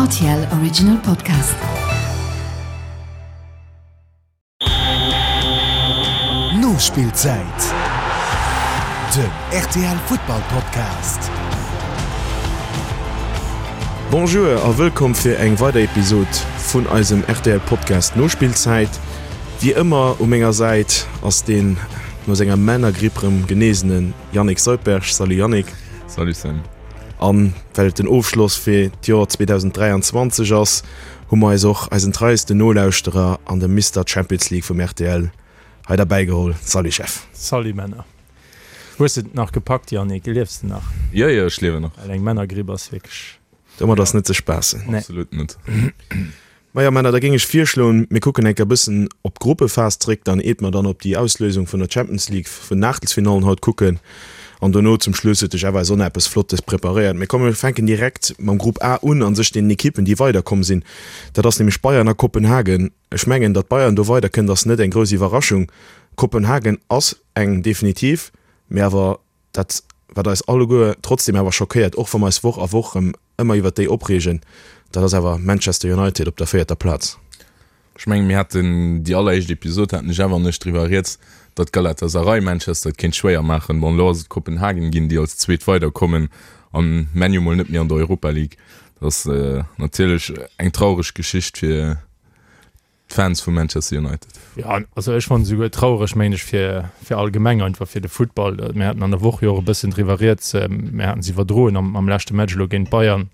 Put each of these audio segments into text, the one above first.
RTL Original Podcast. Nospillzäit, Den rtl Futtball Podcast. Bonjour a wëllkomm fir eng weider Episod vun eisem rtl Podcast Nospillzäit. Wéi ëmmer u menger Säit ass deen no senger Männergripp rëm genesene Yannick Soldberg. Salut Yannick. Salut Sam. An well et den Ofschloss fir d'Joer 2023 ass, hu mer eis och eisen treiesten Nolauschterer an de Mister Champions League vum rtl hei derbäi geholl. Salut Jeff. Salut Männer. Hues de et nach gepackt Yannick? Liefs de nach? Jo jo, ech liewen nach. Well eng Männergripp ass wierklech. Domat ass net ze spaassen. Nee. Absolut net. Majo Männer, da géing ech virschloen, mir kucken enker e bëssen op d'Gruppephas zréck, dann eet mer dann op déi Auslösung vun der Champions League vun den Aachtelsfinallen haut kucken an dono zum Schluss huet de Jeff eis och nach eppes Flottes preparéiert. Mee komm mir fänken direkt mam Grupp A un, an sech deenen Ekippen déi weiderkomm sinn. Dat ass nämlech Bayern a Kopenhagen. Ech mengen, datt Bayern do weiderkënnt ass net eng grouss Iwwerraschung. Kopenhagen ass eng definitiv, mee awer dat wat eis alleguer trotzdem awer schockéiert, och wa mer eis Woch a Woch erëm ëmmer iwwert déi opreegen, dat ass awer Manchester United op der véierter Plaz. Ech mengen, mir haten déi alleréischt Episod, haten de Jeff an ech driwwer rieds, datt Galatasaray Manchester et kéint schwéier maachen. Bon, elo ass et Kopenhagen ginn, déi als Zweet weiderkommen an ManU mol net méi an der Europa League. Dat ass natierlech eng traureg Geschicht fir d'Fans vu Manchester United. Jo, also ech fannen esouguer traureg, mengen ech, fir, fir allgemeng einfach fir de Futtball. Mir haten an der Woch jo och e bëssen driwwer rieds, mir haten se iwwerdroen am, am leschte Match elo géint Bayern,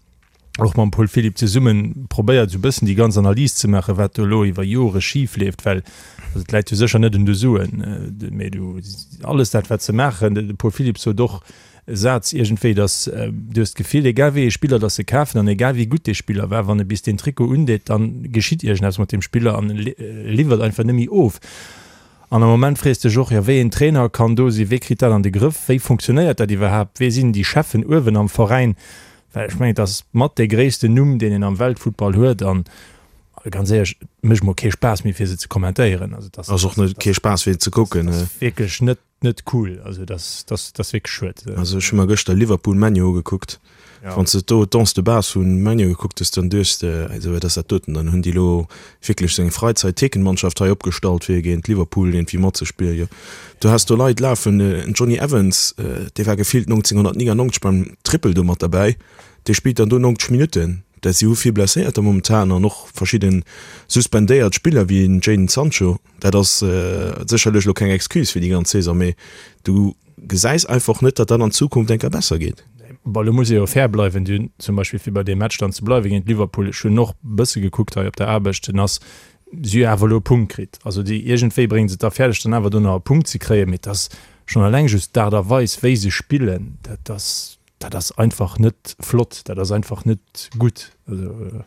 och mam Paul Philipp zesummen probéiert esou e bëssen déi ganz Analys ze maachen, wat do elo iwwer Jore schif leeft, well also et läit jo sécher net un de Suen, mee du alles dat wat se maachen, de Paul Philipp sot och, e Saz iergendwéi, dass du hues d'Gefill, egal wéi ee Spiller dass se kafen an egal wéi gutt dee Spiller war, wann e bis deen Trikot undeet, dann geschitt iergendeppes mat deem Spiller an e liwwert einfach net méi of. An am Moment frees dech och, jo wéi een Trainer kann do sinn, wee kritt dat an de Grëff, wéi funktionéiert dat iwwerhaapt, wee sinn déi Cheffen uewen am Veräin, well ech mengen et ass mat dee gréissten Numm deen een am Weltfuttball huet an ganz éierlech, et mécht mer kee Spaass méi fir se ze kommentéieren. Also et ass Ass och net kee Spaass fir ze kucken. Ass wierklech net Net cool, also dass dass dass wierklech schued. Also ech hu mer gëschter Liverpool ManU ugekuckt. Ja. Wann s de do d'Onze de base vu ManU gekuckt hues, dann duechts de, also wat ass dat doten? Dann hunn déi elo wierklech sou eng Freizeit-Thekenmannschaft hei opgestallt fir géint Liverpool iergendwéi matzespillen. Jo, du has do Leit lafen, en Jonny Evans, dee war gefillt 1999 beim Triple do mat derbäi, dee spillt dann do 90 Minutten. Dat si hu vill Blesséierter momentan an och verschidde suspendéiert Spiller wéi en Jadon Sancho. Dat ass sécherlech elo keng Excuse fir déi ganz Saison, mee du gesäis einfach net, datt dat an Zukunft eng Kéier besser geet. Bon, elo muss ee jo fair bleiwen. Déi hunn zum Beispill, fir bei deem Match dann ze bleiwen géint Liverpool, ech hunn och e bësse gekuckt hei op der Aarbecht, den ass, si hu awer elo e Punkt kritt. Also déi, iergendwéi bréngen se et da fäerdeg, dann awer do nach e Punkt ze kréien. Mee et ass schonn eleng just d'Aart a Weis, wéi se spillen, dat ass, dat ass einfach net flott, dat ass einfach net gutt. Also.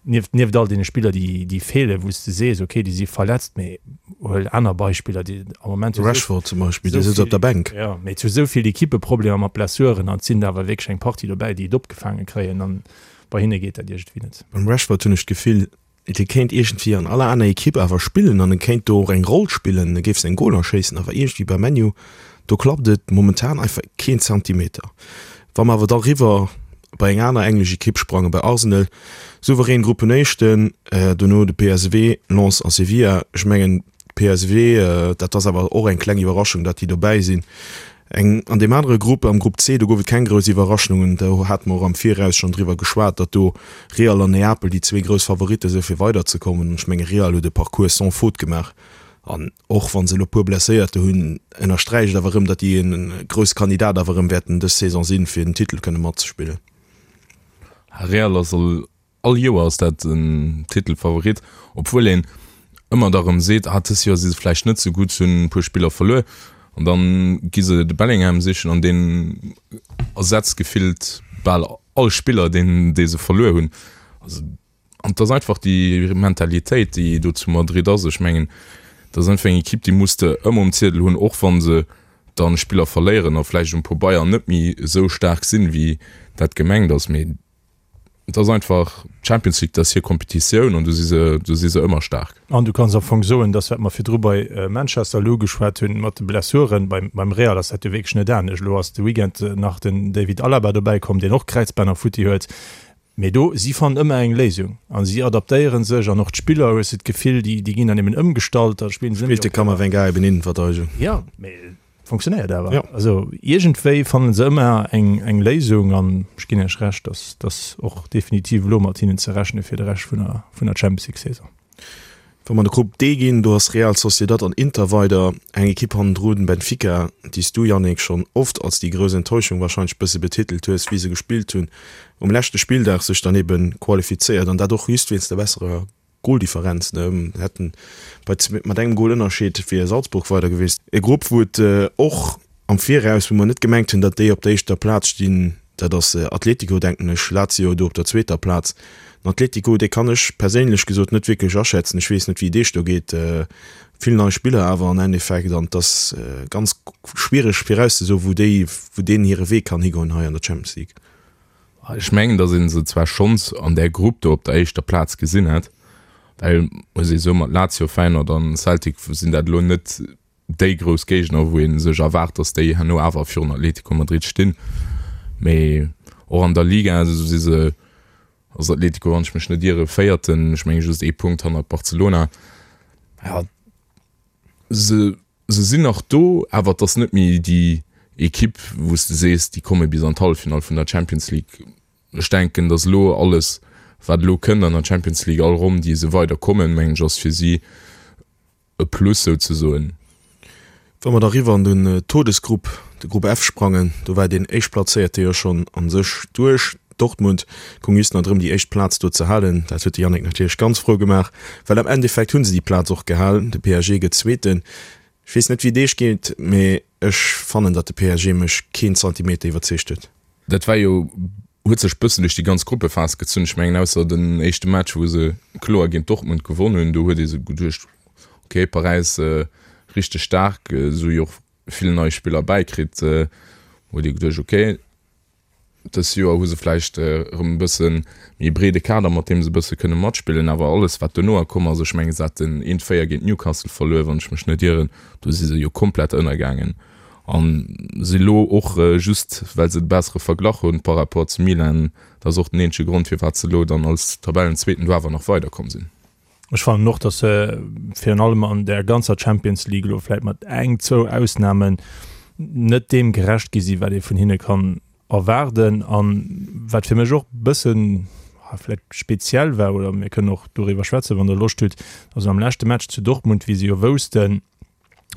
Nieft, nieft all deene Spiller, déi, déi feelen, wou s de sees, okay, déi si verletzt, mee huel aner Beispiller, déi am Moment hu sou, Rashford zum Beispill, dee sëtzt op der Bänk. Jo, mee et hu sou vill Ekippe Problemer mat Blessuren an et sinn der awer wierklech eng Partie dobäi, déi et opgefaange kréien an bei hinne geet dat iergendwéi net. Beim Rashford hunn ech d'Gefill, dee kéint iergendwéi an aller aner Ekipp awer spillen an e kéint do och eng Roll spillen, e géif seng Goler schéissen, awer iergendwéi bei ManU, do klappt et momentan einfach keen Zentimeter. Wa mer awer da riwwer bei eng aner englesch Ekipp sprangen, bei Arsenal, souverän Gruppenéischten, dono de PSV, Lens a Sevilla. Ech mengen PSV, dat ass awer och eng kleng Iwwerraschung, datt déi dobäi sinn. Eng an deem anere Grupp, am Grupp C, do gouf et keng grouss Iwwerraschungen. Do hate mer och am Viraus schonn driwwer geschwat, datt do Real an Neapel déi zwee grouss Favoritte sou fir weiderzekommen. An ech menge Real huet e Parcours sans faute gemaach an Och wa se elo e puer Blesséierter hunn, ënnersträicht awer erëm, datt déi e grousse Kandidat awer erëm wäerten dës Saison sinn, fir den Titel kënne matzespillen. Real ass all all Joer ass dat en Titelfavorit, obwuel een ëmmer da rëm seet, ah dës Joer si se vläicht net sou gutt, se hunn e puer Spiller verluer an dann gi se de Bellingham sichen an deen ersetzt gefillt bal all Spiller deen dee se verluer hunn. Also An et ass einfach déi Mentalitéit, déi do zu Madrid ass. Ech mengen, dat ass einfach eng Ekipp, déi muss de ëmmer um Ziedel hunn, och wa se dann Spiller verléieren a vläicht um Pabeier net méi esou staark sinn, wéi dat gemengt ass. Mee et ass einfach d'Champions League, dat ass hir Kompetitioun an do si se, do si se ëmmer staark. An du kanns am Fong soen, dass, wat mer virdru bei Manchester elo ugeschwat hunn, mat de Blessuren, beim, beim Real ass dat jo wierklech net anescht. Elo ass de Weekend nach den David Alaba dobäikomm, deen och Kräizbänner futti huet. Mee do, si fannen ëmmer eng Léisung a si adaptéiere sech an och d'Spiller, hues de d'Gefill, déi, déi ginn dann eben ëmgestallt, da spillen se net méi Spillt de Camavinga eben Innenverteidigung. Jo, mee et funktionéiert awer. Jo. Also iergendwéi fannen se ëmmer eng, eng Léisung an ech ginn Iech Recht, dass, dass och definitiv elo mat hinnen ze rechne fir de Rescht vun der, vun der Champions League Saison. Wa mer an de Grupp D ginn, do ass Real Sociedad an Inter weider. Eng Ekipp hannendrun, Benfica, déi s du, Yannick, schonn oft als déi grouss Enttäuschung warscheinlech bësse betitelt hues, wéi se gespillt hunn um leschte Spilldag, sech dann ebe qualifizéiert an dat och just wéinst der besserer Goldifferenz. Hätten bei mat engem Gol Ënnerscheed wier Salzburg weider gewiescht. E Grupp, wou et och am Viraus, wou mer net gemengt hunn, datt déi op der éischter Plaz stinn, Dat ass Atletico, denken ech. Lazio do op der zweeter Plaz. Den Atletico, dee kann ech perséinlech gesot net wierklech aschätzen. Ech weess net, wéi et Iech do geet. Vill nei Spiller awer an Endeffekt an et ass ganz schwiereg virauszesoen, wou déi, wou deenen hire Wee kann higoen hei an der Champions League. Ech mengen, datt ee se zwar schonns an där Grupp do op der éischter Plaz gesinn hätt, well, muss ee soen, mat Lazio, Feyenoord an Celtic sinn dat elo net déi grouss Géigner, wou ee sech erwaart, datt déi herno awer virun Atlético Madrid stinn. Mee och an der Liga si se, ass Atlético, wann ech mech net iere, Véierten, ech menge just ee Punkt hannert Barcelona. Jo, se, se sinn nach do, awer et ass net méi déi Ekipp, wou s de sees, déi komme bis an d'Halleffinall vun der Champions League. Ech denken, datt elo alles, wat elo kënnt an der Champions League, all Ronn, déi se weider kommen, mengen ech, ass fir si e Plus souzesoen. Wa mer da riwwer an den Todesgrupp, de Grupp F sprangen, do war deen Éischtplazéierte jo schonn a sech duerch. Dortmund goung just nach drëm déi éischt Plaz do ze halen. Dat huet de Yannick natierlech ganz frou gemaach, well am Endeffekt hu se déi Plaz och gehal. De PSG gëtt Zweeten. Ech weess net wéi et iech geet, mee ech fannen, datt de PSG mech keen Zantimeter iwwerzeegt huet. Dat war jo, huet sech bëssen duerch déi ganz Gruppephas gezunn. Ech mengen ausser den éischte Match, wou se kloer géint Dortmund gewonn hunn, do huet ee sou geduecht, ok, Paräis richteg staark, se hu jo och vill nei Spiller bäikritt, huet ee geduecht, ok, dës Joer hu se vläicht erëm e bësse méi breede Kader, mat deem se e bësse kënne matspillen. Awer alles wat dono komm ass, ech mengen se haten eent 4 géint Newcastle verluer, wann ech mech net ieren, do si se jo komplett ënnergaangen. An si lo och just well se de bessere Verglach hunn par rapport zu Milan, dat ass och den eenzege Grond firwat se lo dann als Tabellenzweeten do awer nach weiderkomm sinn. Ech fannen och, datt se virun allem an där ganzer Champions League elo vläit mat eng, zwou Ausnamen net deem gerecht gi sinn, wat ee vun hinne kann erwaarden. An wat fir mech och e bëssen vläicht speziell war, oder mir kënnen och doriwwer schwätzen, wann Der Loscht hutt, also am leschte Match zu Dortmund, wéi se jo woussten,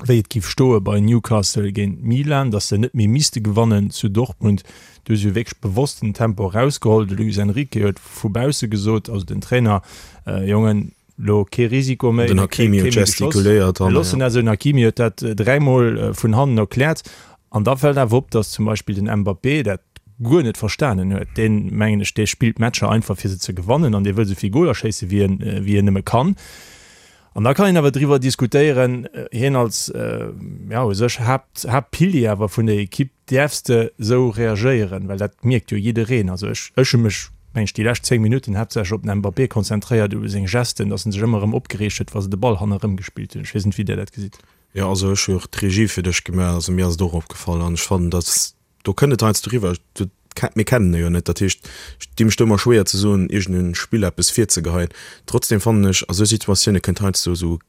wéi et giff stoe bei Newcastle géint Milan, datt se net méi misste gewannen zu Dortmund. Do hu se jo wierklech bewosst den Tempo erausgeholl. De Luis Enrique huet vu bausse gesot, also den Trainer, Jongen, lo kee Risiko méi, Den Hakimi huet gestikuléiert. Mir loossen dat esou. Den Hakimi huet dat dräimol vun hannen erkläert. An da fält awer op, datt zum Beispill den Mbappé dat guer net verstanen huet. Deen, mengen ech, dee spillt Matcher einfach fir se ze gewannen an dee wëll esou vill Goler schéisse wéi en, wéi en nëmme kann. An da kann een awer driwwer diskutéieren, hien als, ja, u sech Haapt, Haaptpilier awer vun der Ekipp, däerfs de esou reagéieren? Well dat mierkt jo jiddereen. Also ech, ech hu mech, meng ech, déi lescht 10 Minutten haaptsächlech op den Mbappé konzentréiert, u seng Gesten, datt en sech ëmmer erëm opgereegt huet, wa se de Ball hannerëm gespillt hunn. Ech weess net, wéi Dir dat gesitt. Jo, also ech hu och d'Regie fir dech gemaach, also mir ass et och opgefall an ech fannen, datt Do kënnt et heiansdo eriwwer, mir kennen e jo net, dat heescht, ech di mech do ëmmer schwéier ze soen, iergendengem Spiller eppes virzegeheien. Trotzdem fannen ech, a sou Situatioune kënnt heiansdo esou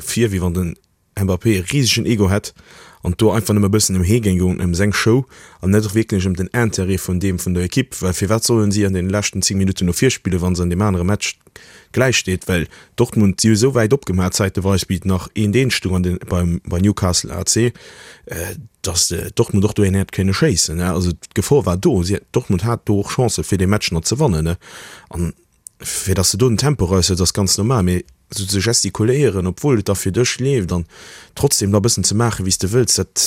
vir, wéi wann den Mbappé e risegen Ego hätt an do einfach nëmme e bëssen ëm hie géing goen, ëm seng Show an net wierklech ëm den Intérêt vun deem vun der Ekipp. Well firwat sollen si an deene leschten 10 Minutten no vir spillen, wa se an deem anere Match gläich steet? Well Dortmund, si hu esou wäit opgemaach zäiteweis, wéi et nach eent eent stoung an den, beim, bei Newcastle AC, datt Dortmund och do een hätt kënne schéissen. Also d'Gefor war do. Si, Dortmund hat do och Chancë fir dee Match nach ze wannen. An fir datt s de do den Tempo eraushëls, ass ganz normal. Mee esou ze gestikuléieren, obwuel et da fir dech leeft an trotzdem da e bëssen ze maachen, wéi s de wëlls, dat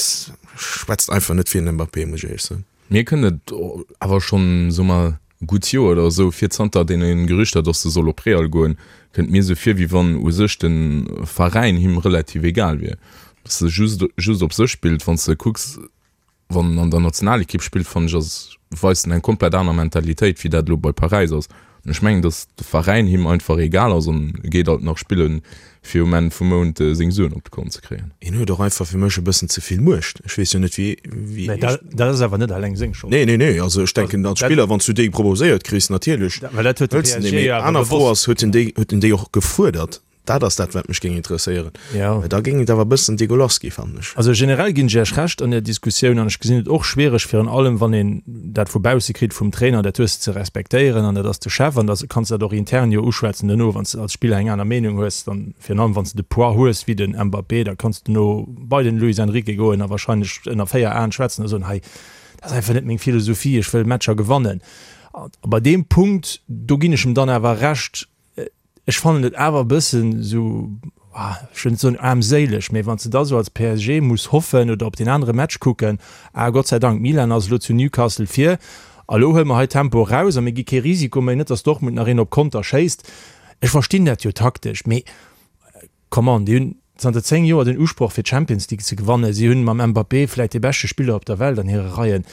schwätzt einfach net fir den Mbappé, muss ech éierlech soen. Mir kënnt et awer schonn, soe mer, e gutt Joer oder esou vir, zanter deene Gerüchter, datt e soll op Real goen, kënnt mir esou vir, wéi wann u sech de Veräin him relativ egal wier, datt e just just op sech spillt. Wann s de kucks, wann en an der Nationalekipp spillt, fannen ech, ass weist en eng komplett aner Mentalitéit, wéi dat elo bei Paräis ass. An ech mengen, datt de Veräin him einfach egal ass an e geet alt nach spillen, fir um Enn vum Mount seng Suen op de Kont ze kréien. Hien huet och einfach fir mech e bëssen ze vill Muecht. Ech weess jo net, wéi, wéi. Mä dat, dat ass awer net alleng seng Schold. Nee, nee, nee. Also ech denken, als Spiller, wann s du déi proposéiert kriss, natierlech Well dat huet de hëls de déi. PSG Mee jo awer aner Fro bewosst ass, huet en déi, huet en déi och gefuerdert? Dat ass dat, wat mech géing interesséieren. Ja. Well da géing et awer e bëssen degueulass gi, fannen ech. Also generell ginn ech Iech Recht an der Diskussioun an ech gesinn et och schwiereg, virun allem wann een dat vu bausse kritt vum Trainer, dat hues de ze respektéieren an dat ass de Chef an da kanns de dat och intern jo uschwätzen duerno, wann s de als Spiller eng aner Meenung hues, dann virun allem wann s de de Poids hues wéi den Mbappé, da kanns de duerno bei den Luis Enrique goen a wahrscheinlech ënner 4 Aen schwätzen a soen, hei dat ass einfach net meng Philosophie, ech wëll Matcher gewannen. A bei deem Punkt, do ginn ech em dann awer Recht, Ech fannen et awer e bëssen esou, ech wëll net soen aarmséileg, mee wann s de da sou als PSG muss hoffen oder op deen anere Match kucken, ah Gott sei Dank, Milan ass elo zu Newcastle vir a lo huele mer hei Tempo eraus a mir gi kee Risiko méi, net datt Dortmund nach een op Konter schéisst. Ech verstinn dat jo taktesch, mee come on, déi hunn zanter 10 Joer den Usproch fir d'Champions League ze gewannen, si hunn mam Mbappé vläit dee beschte Spiller op der Welt an hire Reien.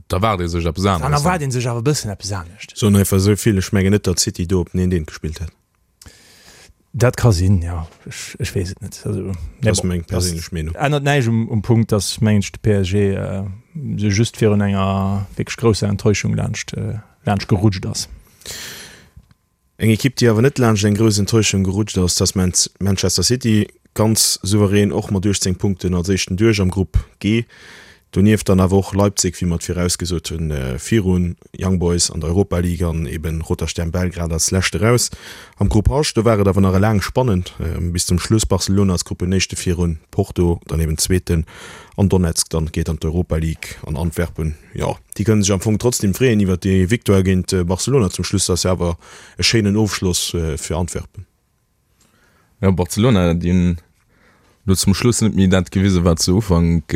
Da erwaart ee sech eppes Dann aneres. erwaart ee sech awer e bëssen eppes anescht. Soen einfach esou vill, ech mengen net, datt City do op den Eent-Eent gespillt hätt. Dat ka sinn, jo. Ech, ech weess et net. Also, Dat mee ass bon, meng dat perséinlech Meenung. ännert näischt um, um Punkt, datt, mengen ech, de PSG sou just virun enger wierklech grousser Enttäuschung laanscht, laanscht gerutscht ass. Eng Ekipp, déi awer net laanscht eng grouss Enttäuschung gerutscht ass, dat ass Manchester City. Ganz souverän och mat 18 Punkten als éischten duerch am Grupp G. Donieft dann awer och Leipzig, wéi mer et virausgesot hunn, virun Young Boys an der Europa League an eben Roter Stern Belgrad als lescht eraus. Am Grupp H, do war et awer nach laang spannend bis zum Schluss. Barcelona als Gruppenéischte virun Porto, dann eben Zweeten an Donetsk dann geet an d'Europa League an Antwerpen, jo. Déi kënnen sech am Fong trotzdem freeën iwwert déi Victoire géint Barcelona zum Schluss. Dat ass jo awer e schéinen Ofschloss fir Antwerpen. Jo, Barcelona, déi hunn elo zum Schluss net méi dat gewisen, wat se Ufank,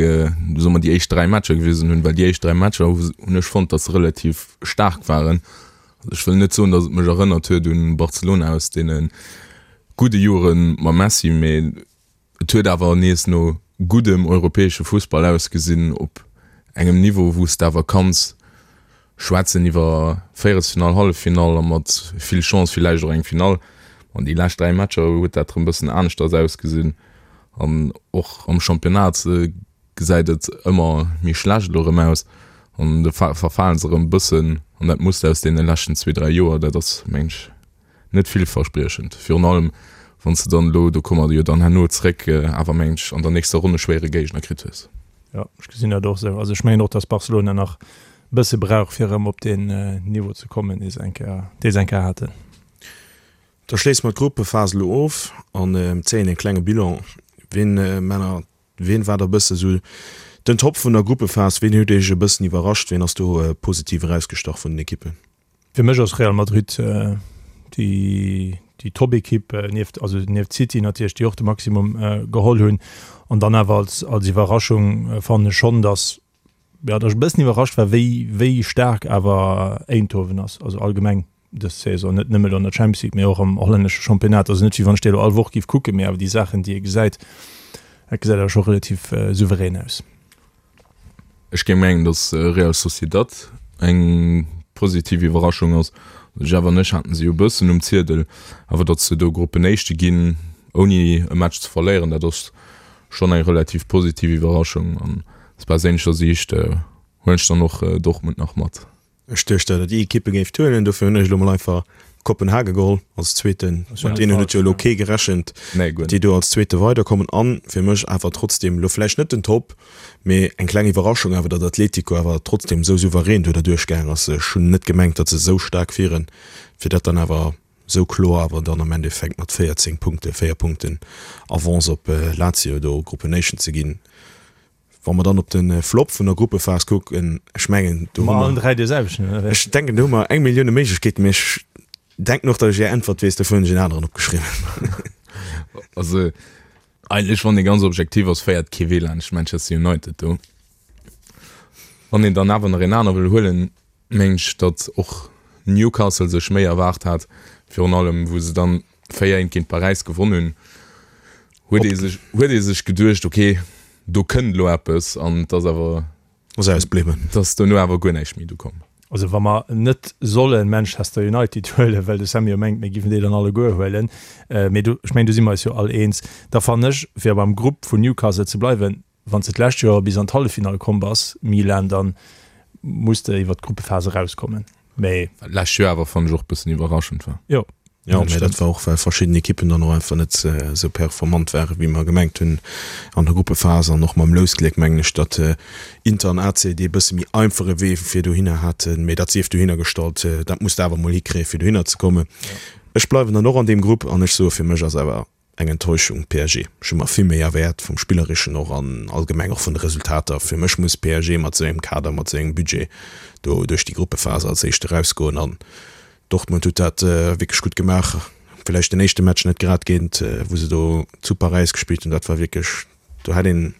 soe mer déi éischt 3 Matcher gewisen hunn, well déi éischt 3 Matcher hunn ech fonnt, datt se relativ staark waren. Ech wëll net soen, datt et mech erënnert huet un Barcelona aus deene gudde Jore mam Messi, mee Et huet awer nees no guddem europäesche Fussball ausgesinn, op engem Niveau, wou s de awer kanns schwätzen iwwer Véierelsfinall, Halleffinall a mat vill Chance villäicht och eng Finall. An déi lescht 3 Matcher huet dat erëm bëssen aneschters ausgesinn an och am Championnat gesäit et ëmmer méi schlecht elo erëm aus an do verfalen se erëm e bëssen an dat Muster aus deene leschten zwee, dräi Joer, dat ass, meng ech, net villverspriechend. Virun allem wann s de dann elo, do komme mer jo dann herno zréck, awer meng ech an der nächster Ronn e schwéiere Géigner kritt hues. Jo, ech gesinn dat och esou. Also ech mengen och, datt Barcelona nach e bësse brauch, fir erëm op deen Niveau ze kommen, dee se eng Kéier, dee se eng Kéier haten. Da schléisse mer d'Gruppephas elo of an zéien e klenge Bilan. Ween, Männer, ween war da bësse sou den Top vun der Gruppephas? Ween huet Iech e bëssen iwwerrascht? Ween ass do positiv erausgestach vun den Ekippen? Fir mech ass Real Madrid déi déi Top-Ekipp nieft also nieft City natierlech, déi och de Maximum geholl hunn. An dann awer als als Iwwerraschung fannen ech schonn, datt jo datt ech e bëssen iwwerrascht war, wéi wéi staark awer Eindhoven ass, also allgemeng dës Saison, net nëmme elo an der Champions League, mee och am hollännesche Championnat. Also net wéi wann ech déi elo all Woch géif kucken, mee awer déi Saachen déi ee gesäit, dat gesäit awer scho relativ souverän aus. Ech géing mengen, datt Real Sociedad eng positiv Iwwerraschung ass. Jeff an ech haten se jo e bëssen um Ziedel, awer datt se do Gruppenéischte ginn, ouni e Match ze verléieren, dat ass schonn eng relativ positiv Iwwerraschung. An aus perséinlecher Siicht huelen ech dann och Dortmund nach mat. Ech duecht datt der déi Ekippe géift huelen, dofir hunn ech elo mol einfach Kopenhagen geholl als zweeten. Mat deenen huet jo elo kee gerechent, datt déi do als zweete weiderkommen. An fir mech awer trotzdem elo vläicht net den Top, mee eng kleng Iwwerraschung awer, datt Atletico awer trotzdem esou souverän do derduerch gaang ass. Ech hunn net gemengt, datt se esou staark wieren, fir dat dann awer esou kloer awer dann am Endeffekt mat 14 Punkte, 4 Punkten Avance op Lazio do Gruppenéischten ze ginn. Wa mer dann op de Flop vun der Gruppephas kucken, ech mengen, do hu mer, ech denken, do hu mer eng Millioune Méiglechkeeten, mee ech denken och, datt ech Är Äntwert weess, dofir hunn ech en aneren opgeschriwwen. Also eigentlech, wann ee ganz objektiv ass, féiert kee Wee laanscht Manchester United do. Wann een dann awer nach een aner wëll huelen, mengen ech, datt och Newcastle sech méi erwaart hat, virun allem wou se dann 4 eent géint Paräis gewonn hunn, huet ee sech, huet ee sech geduecht, okay, do kënnt elo eppes an et ass awer, Ass ausbliwwen. Et ass dono awer guer näischt méi do komm. Also wa mer net solle Manchester United huelen, well de Sammy jo mengt, mir giffen déi dann alleguer huelen, mee do, ech mengen, do si mer eis jo all eens, da fannen ech, fir beim Grupp vun Newcastle ze bleiwen, wann s de d'lescht Joer bis an d'Halleffinall komm bass, Milan, dann muss de iwwert d'Gruppephas erauskommen. Mee. Wat d'lescht Joer awer, fannen ech, och e bëssen iwwerraschend war. Jo. Jo, mä dat war och, well verschidden Ekippen dann och einfach net esou performant waren, wéi mer gemengt hunn an der Gruppephas. An och mam Lousgléck mengen ech, datt Inter an AC dee bësse méi einfache Wee fir dohinner haten. Mä dat sief dohinner gestallt, dat muss de awer emol hikréien, fir dohinner ze kommen. Ech bleiwen dann och an deem Grupp an ech soe fir mech ass awer Eng Enttäuschung, PSG. Ech hu mer vill méi erwäert, vum Spillerischen och an allgemeng och vun de Resultater. Fir mech muss PSG mat esou engem Kader, mat esou engem Budget do duerch déi Gruppephase als Éischt erausgoen. An Dortmund huet dat wierklech gutt gemaach. Villäicht den éischte Match net grad géint, wou se do zu Paräis gespillt hunn, dat war wierklech, do hätt ee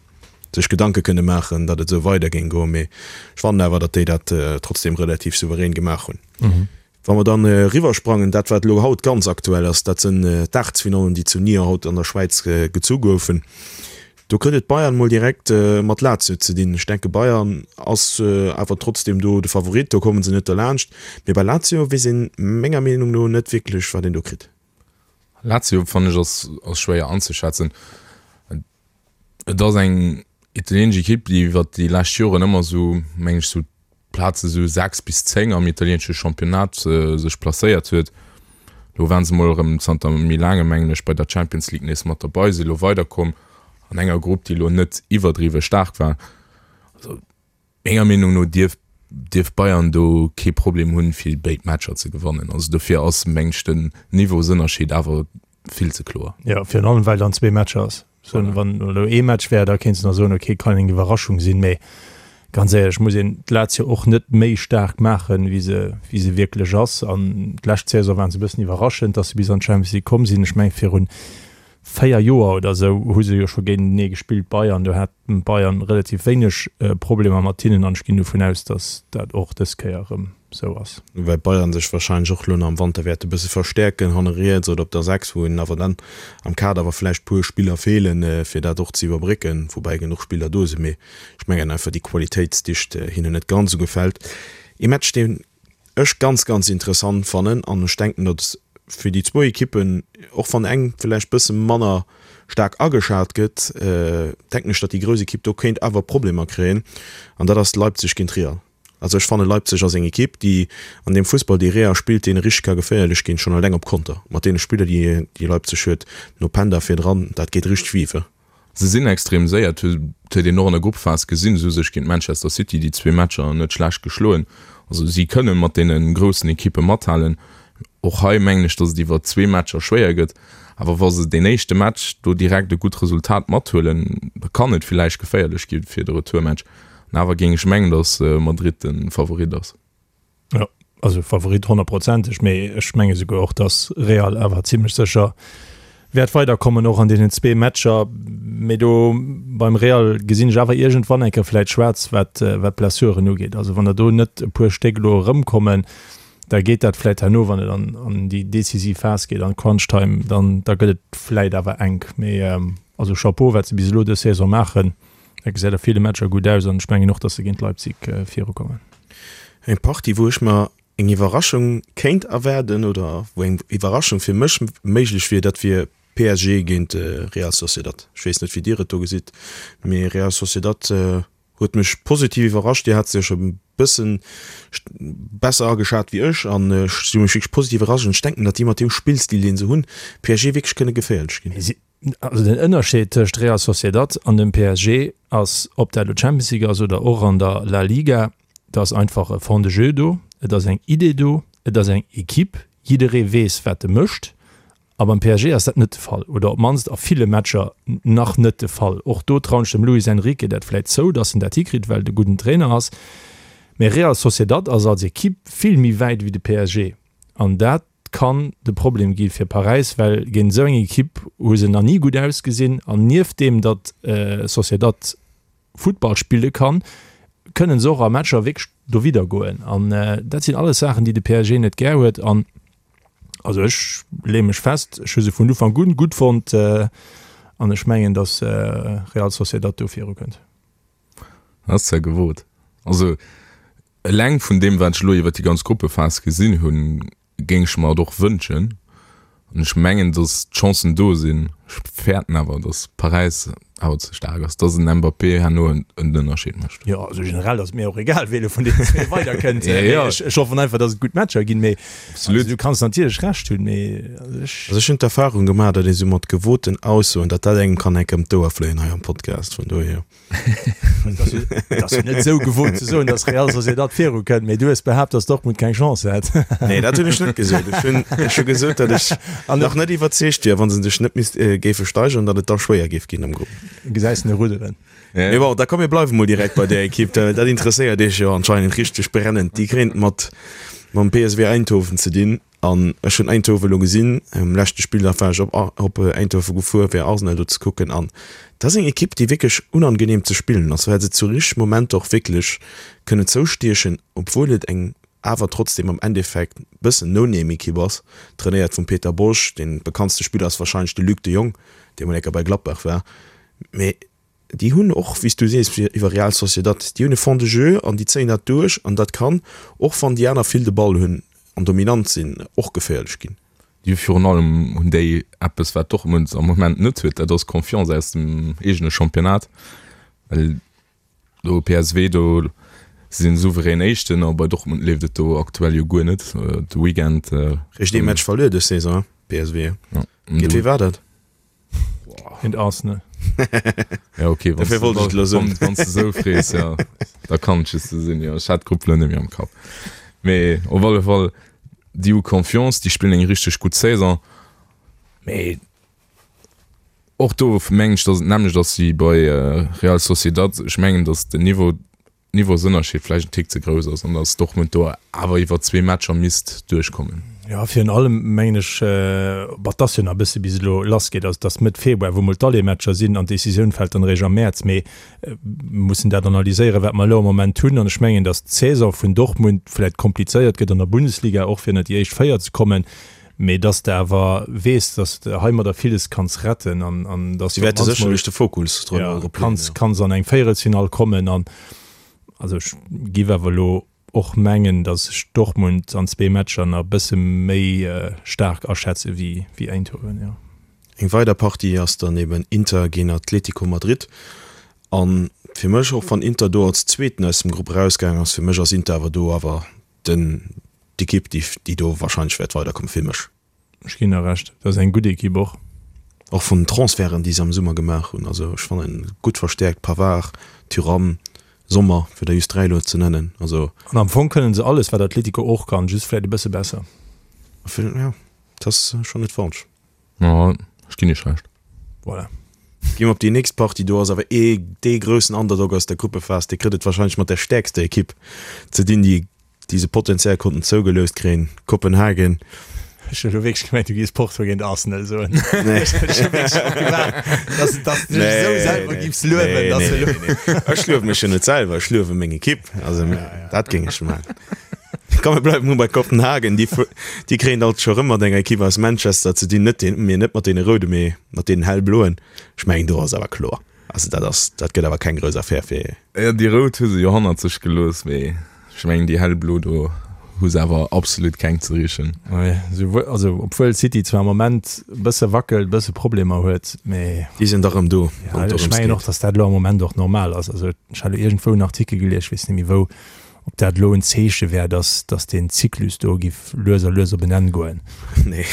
sech Gedanke kënne maachen, datt et esou weider géing goen. Mee ech fannen awer, datt déi dat trotzdeem relativ souverän gemaach hunn. Wa mer dann eriwwer sprangen, dat wat elo haut ganz aktuell ass, dat sënn d'Aachtelsfinallen, déi zu Nyon haut an der Schwäiz gezu goufen. Do kritt et Bayern mol direkt mat Lazio ze dinn. Ech denke Bayern ass awer trotzdem do de Favorit, do komme se net derlaanscht. Mee bei Lazio weess een menger Meenung no net wierklech wat een do kritt. Lazio fannen ech ass schwéier anzeschätzen. Et ass eng italienesch Ekipp, déi iwwer déi lescht Joren ëmmer esou, meng ech, sou d'Plaze sou 6 bis 10 am italienesche Championnat sech placéiert huet. Elo waren se mol erëm zanter méi laangem, mengen ech, bei der Champions League nees mat derbei, si elo weiderkomm an enger Grupp, déi elo net iwwerdriwwe staark war. Also Menger Meenung no dierf dierf Bayern do kee Problem hunn, fir béid Matcher ze gewannen. Also dofir ass, meng ech, den Niveausënnerscheed awer vill ze kloer. Jo, virun allem well dann zwee Matcher ass. Voilà. Wann elo ee Match wär, da kéints de nach soen, okay, kann eng Iwwerraschung sinn, mee ganz éierlech muss een d'Lazio och net méi staark maachen, wéi se wéi se wierklech ass. An d'lescht Saison waren se e bëssen iwwerraschend, datt se bis an d'Champions League komm sinn. Ech mengen virun 4 Joer oder esou hu se jo scho géintenee gespillt, Bayern. Do hat Bayern relativ wéineg Problemer mat hinnen an ech ginn dovun aus, datt dat och dës Kéier erëm esou ass. Woubäi Bayern sech warscheinlech och elo nach am Wanter wäert e bësse verstäerken, hanne riets oder op der 6, wou hinnen awer dann am Kader awer vläicht puer Spiller feelen, fir dat och ze iwwerbrécken, woubäi genuch Spiller do sinn. Mee ech mengen einfach déi Qualitéitsdicht hinnen net ganz esou gefält. Ee Match, deen ech ganz ganz interessant fannen an ech denken datt fir déi zwou Ekippen, och wann eng villäicht bësse manner staark ageschat gëtt, denken ech datt déi grouss Ekipp do kéint awer Problemer kréien an dat ass Leipzig géint Real. Also ech fanne Leipzig ass eng Ekipp déi an deem Fussball dee Real spillt, deene richteg ka geféierlech ginn, schonn alleng op Konter mat deene Spiller déi déi Leipzig huet, no Penda virdran, dat geet richteg vive. Se sinn extrem séier, dat huet een och an der Gruppephas gesinn. Se hu sech géint Manchester City déi zwee Matcher net schlecht geschloen. Also si kënne mat deene groussen Ekippe mathalen. Och hei mengen ech, datt et iwwer zwee Matcher schwéier gëtt. Awer wa se deen éischte Match do direkt e gutt Resultat mathuelen, da kann et villäicht geféierlech gi fir de Retourmatch. An awer géing ech mengen, datt Madrid de Favorit ass. Jo, also Favorit honnertprozenteg, mee ech menge souguer och, datt Real awer zimlech sécher wäert weiderkommen, och an deenen zwee Matcher. Mee do beim Real gesinn ech awer iergendwann eng Kéier vläit schwaarz, wat wat d'Blessuren ugeet. Also wann der do net e puer Stéck elo erëmkommen, da geet dat vläit herno, wann et an an déi decisiv Phas geet, an d'Crunch Time, dann da gëtt et vläit awer enk. Mee also Chapeau, wat se bis elo dës Saison maachen. Dat gesäit a ville Matcher gutt aus an ech mengen och, datt se géint Leipzig virukommen. Eng Partie, wou ech mer eng Iwwerraschung kéint erwaarden oder wou eng Iwwerraschung fir mech méiglech wier, dat wier PSG géint Real Sociedad. Ech weess net, wéi Dir et do gesitt, mee Real Sociedad huet mech positiv iwwerrascht. Dir hat se jo scho e bëssen besser ageschat wéi ech an ech si mech wierklech positiv iwwerrascht an ech denken, datt déi mat deem Spillstil, dee se hunn, PSG wierklech kënne geféierlech ginn. Also den Ënnerscheed tëscht Real Sociedad an dem PSG ass, ob dat elo Champions League ass oder och an der La Liga, et ass einfach e Fond de jeu do, et ass eng Idee do, et ass eng Equipe, jidderee weess wat e mécht. A beim PSG ass dat net de Fall oder op d'mannst a ville Matcher nach net de Fall. Och do trauen ech dem Luis Enrique dat vläit zou, datt en dat hikritt, well et e gudden Trainer ass. Mee Real Sociedad ass als Equipe vill méi wäit wéi de PSG an dat kann de Problem gi fir Paräis, well géint esou eng Ekipp hu se nach ni gutt ausgesinn. An nieft deem, datt Sociedad Futtball spille kann, kënne se och a Matcher wierklech dowidder goen. An dat sinn alles Saachen, déi de PSG net gär huet. An also ech leeë mech fest, ech hu se vun Ufank un gutt fonnt an ech mengen, datt Real Sociedad do virukënnt. Dat ass zwar gewot. Also. Eleng vun deem, wat ech elo iwwer déi ganz Gruppephas gesinn hunn, géing ech mer et och wënschen. An ech mengen, datt d'Chancen do sinn. Ech fäerten awer, datt Paräis awer ze staark ass, datt en Mbappé herno en Ënnerscheed mécht. Jo, also generell ass et mir och egal, wee elo vun deenen zwee weiderkënnt. Ech hoffen einfach, datt et gutt Matcher ginn. Mee also du kanns natierlech Recht hunn, mee also ech. Also ech hunn d'Erfarung gemaach, datt ee sou mat gewoten Aussoen, datt dat engem kann enk ëm d'Ouer fléien hei am Podcast. Vun dohier. Et ass jo net esou gewot ze soen, datt Real Sociedad viru kënnt, mee du hues behaapt, datt Dortmund keng Chance hätt. Nee, dat hunn ech net gesot. Ech hunn, ech hu gesot, datt ech nach net iwwerzeegt wier, wa se sech net misst géife steigeren, datt et da schwéier géif ginn am Grupp. Gesäis en rudderen. Mee bon, da komm mir bleiwe mol direkt bei där Ekipp, dat interesséiert iech jo anscheinend richteg brennend. Déi kréien et mat mam PSV Eindhoven ze dinn. An ech hunn Eindhoven elo gesinn, um leschte Spilldag war ech op op Eindhoven gefuer fir Arsenal do ze kucken an dat ass eng Ekipp déi wierklech unangenehm ze spillen ass, well se zu richtege Momenter och wierklech kënnen zoustiechen, obwuel et eng awer trotzdem am Endeffekt bëssen No-Name-Ekipp ass, trainéiert vum Peter Bosz. Dee bekanntste Spiller ass wahrscheinlech de Luc de Jong, dee mol eng Kéier bei Gladbach war, mee Déi hunn och, wéi s du sees, iwwer Real Sociedad, déi hunn e Fond de jeu an déi zéien dat duerch an dat kann, och wann déi aner vill de Ball hunn an dominant sinn, och geféierlech ginn. Déi hu virun allem hunn déi eppes, wat Dortmund am Moment net huet, dat ass Confiance aus dem eegene Championnat, well do PSV, do si sinn souverän Éischten a bei Dortmund leeft et do aktuell jo guer net. De Weekend. Réischt ee Match verluer dës Saison, PSV. Géint wee war dat? Géint Arsenal. Ja, okay, wann Dofir wollt ech et elo soen. Wann s de sou frees, ja, da kann et just sou sinn, jo. Ech hat d'Grupp elo net méi am Kapp. Mee op alle Fall, déi hu Confiance, déi spillen eng richteg gutt Saison. Mee och do mengen ech, datt et d'nämmlecht ass wéi bei Real Sociedad. Ech mengen, datt den Niveau Niveausënnerscheed vläicht en Tick ze grouss ass an datt Dortmund do awer iwwer zwee Matcher misst duerchkommen. Jo, virun allem mengen ech, bon, et ass jo nach e bësse bis et elo lassgeet, also et ass Mëtt Februar, wou mol d'Aller-Matcher sinn an d'Decisioun fält dann eréischt am Mäerz, mee mir mussen dat analyséieren, wat mer elo am Moment hunn an ech mengen, datt d'Saison vun Dortmund vläicht komplizéiert gëtt an der Bundesliga, och fir ënnert déi éischt 4 ze kommen, mee datt s de awer weess, datt s de heimadder villes kanns retten an an datt s Si wäerte sécherlech de Fokus drop leeën, jo. Kanns kanns an eng Véierelsfinall kommen an also ech giff awer elo och mengen, datt ech Dortmund an zwee Matcher nach e bësse méi staark aschätze wéi wéi Eindhoven, jo. Eng weider Partie ass dann eben Inter géint Atletico Madrid an fir mech, och wann Inter do als Zweeten aus dem Grupp erausgaangen ass, fir mech ass Inter awer do awer den d'Ekipp déi déi do wahrscheinlech wäert weiderkommen, fir mech. Ech ginn der Recht, dat ass eng gutt Ekipp och. Och vun den Transferten déi se am Summer gemaach hunn, also ech fannen gutt verstäerkt, Pavard, Thuram, Sommer, fir der just 3 elo ze nennen, also. An am Fong kënnen se alles wat Atletico och kann, just vläit e bësse besser. Jo, dat ass schonn net falsch. Jo, ech ginn iech Recht. Voilà. Gi mer op déi nächst Partie. Do ass awer ee dee groussen Underdog aus der Gruppephas, dee kritt et warscheinlech mat der stäerkster Ekipp ze dinn, déi déi se potenziell konnten zougeloust kréien, Kopenhagen. Ech hunn elo wierklech gemengt, du géifs Porto géint Arsenal soen. Nee. Ech hu wierklech drop gewaart, dass, dass du dech esou selwer géifs luewen, dass du elo. Ech luewe mech jo net selwer, ech luewe meng Ekipp. Also dat géing ech maachen. Komm mir bleiwen mol bei Kopenhagen, déi, déi kréien alt scho rëm mat enger Ekipp aus Manchester ze dinn, net deen, mee net mat deene roude, mee mat deenen hellbloen. Ech mengen do ass awer kloer, also dat ass, dat gëtt awer keng grouss Affär fir. Jo, déi rout hu se jo hannert sech gelooss, mee ech mengen déi hellblo do hu se awer absolut keng ze richen. Nee, souwuel, also obwuel City zwar am Moment e bësse wackelt, e bësse Problemer huet, mee. Déi sinn da rëm do, wann et dorëms geet. Ech mengen och, datt dat elo am Moment och normal ass. Also ech hat elo iergendwou en Artikel gelies, ech weess net méi wou, Ob dat elo en Zeeche wär, dass, dass deen Zyklus do giff lues a lues op en Enn goen. Nee,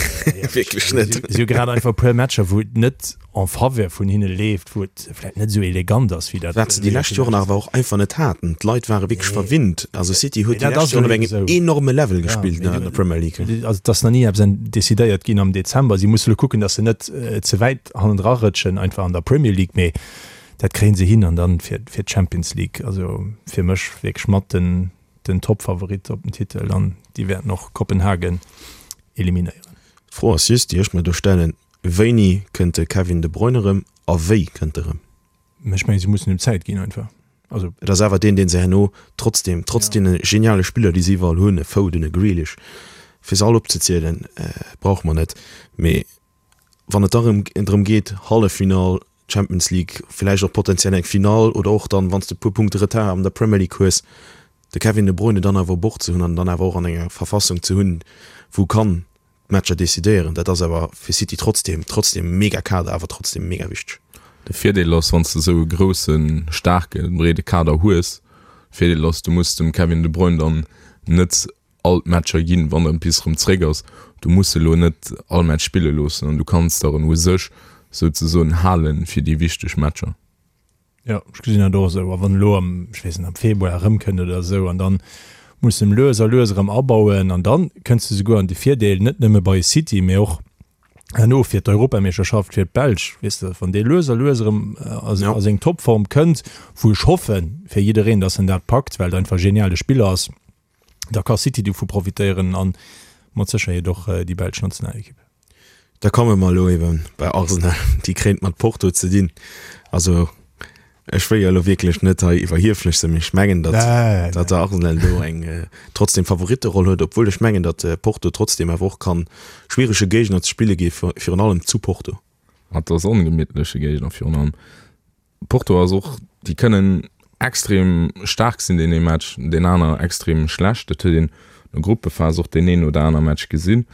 wierklech net. Si hu grad einfach e puer Matcher, wou et net en faveur vun hinne leeft, wou et vläicht net esou elegant ass, wéi dat. Wat se déi lescht Joren awer och einfach net haten. D'Leit ware wierklech verwinnt. Also City huet déi lescht Joren op engem enorme Level gespillt an der Premier League. Also et ass nach ni eppes decidéiert ginn am Dezember. Si musse elo kucken, dass se net ze wäit hannendra rëtschen, einfach an der Premier League. Mee Dat kréien se hin an dann fir fir d'Champions League, also fir mech wierklech mat den den Topfavorit op den Titel an déi wäerten och Kopenhagen eliminéieren. D'Fro ass just, déi ech mer do stellen, Wéini kënnt de Kevin De Bruyne erëm a wéi kënnt e rëm? Ech mengen, se mussen him Zäit ginn einfach. Also. Et ass awer deen, dee se herno trotzdem, trotz deene geniale Spiller, déi se iwwerall hunn, e Foden, e Grealish, fir se all opzezielen, brauche mer net, mee wann et da rëm drëm geet, Halleffinall Champions League, villäicht och potenziell eng Finall oder och dann, wann s de e puer Punkte Retard an der Premier League hues, De Kevin De Bruyne dann awer u Bord ze hunn an dann awer och an enger Verfassung ze hunn, wou kann d'Matcher decidéieren, dat ass awer fir City trotzdem, trotzdem mega Kader, awer trotzdem mega wichteg. De Virdeel ass, wann s de esou e groussen, staarken, breede Kader hues, Virdeel ass, du muss dem Kevin De Bruyne dann net all d'Matcher ginn, wann en bis erëm zréck ass. Du muss e lo net all Match spille loossen an du kanns der en u sech souzesoen halen fir déi wichteg Matcher. Jo, ech gesinn dat och esou. A wann elo am, ech weess net, am Februar erëmkënnt oder esou an dann muss en lues a lues erëm abauen an dann kënns de souguer an de Virdeel, net nëmme bei City, mee och herno fir d'Europameeschterschaft fir d'Belsch, weess de, wann dee lues a lues erëm a seng Topform kënnt, wou ech hoffe fir jiddereen, datt en dat packt, well et einfach e geniale Spiller ass, da ka City dovu profitéieren a mat Sécherheet och déi belsch Nationalekipp. Da komme mer elo ebe bei Arsenal, déi kréint mat Porto ze dinn. Also ech wëll jo elo wierklech net hei iwwerhieflech sinn, mee ech mengen, datt datt der Arsenal do eng trotzdem Favoritteroll huet, obwuel ech mengen, datt Porto trotzdem awer och kann schwierege Géigner ze spille gi virun allem zu Porto. Et ass ongemittleche Géigner virun allem. Porto ass och, déi kënnen extrem staark sinn deen ee Match, deen aner extrem schlecht. Dat huet een an der Gruppephas och deen een oder aner Match gesinn.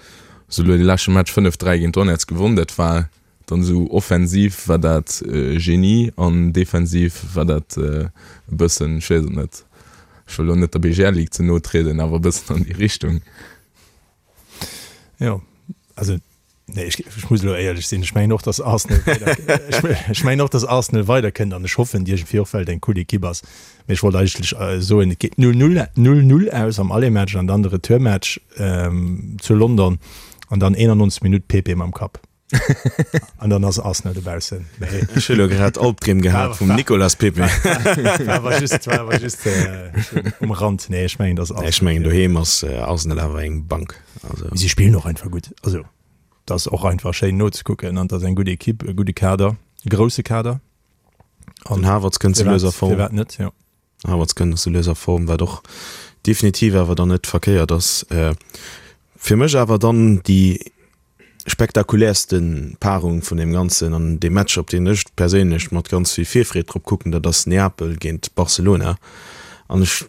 Se hu elo dee leschte Match 5, 3 géint Donetsk gewonn. Dat war dann esou offensiv war dat Genie an defensiv war dat e bëssen, ech weess et net, ech wëll elo net der BGL Ligue ze no trieden, awer e bëssen an déi Richtung. Jo, also Nee, ech, ech muss elo éierlech sinn, ech mengen och, dass Arsenal weider, ech, ech mengen och, dass Arsenal weiderkënnt an ech hoffen iergendwéi och, well et eng cool Ekipp ass. Mee ech wollt eigentlech soen, et geet 0, 0, 0, 0 aus am Aller-Match an dann de Retourmatch ähm, zu London an dann 91 Minutt Pepe mam Kapp. An dann ass Arsenal dobaussen. Mee Ech hu lo grad Albdreem gehat vum Nicolas Pepe. war awer just, war awer just äh, um Rand. Nee, ech mengen, dass Arsenal. Ech mengen, doheem ass Arsenal awer eng Bank. Also. Si spillen och einfach gutt. Also dat ass och einfach schéin nozekucken an dat ass eng gutt Ekipp, e gudde Kader, e grousse Kader. An den Havertz kënnt sou lues a Form. Firwat net, jo. Havertz kënnt sou lues a Form, wat och definitiv awer dann net verkéiert ass. Fir mech awer dann déi spektakuläerste Paarung vun deem Ganzen an dee Match, op deen ech perséinlech mat ganz vill Virfreed drop kucken, dat ass Neapel géint Barcelona. An ech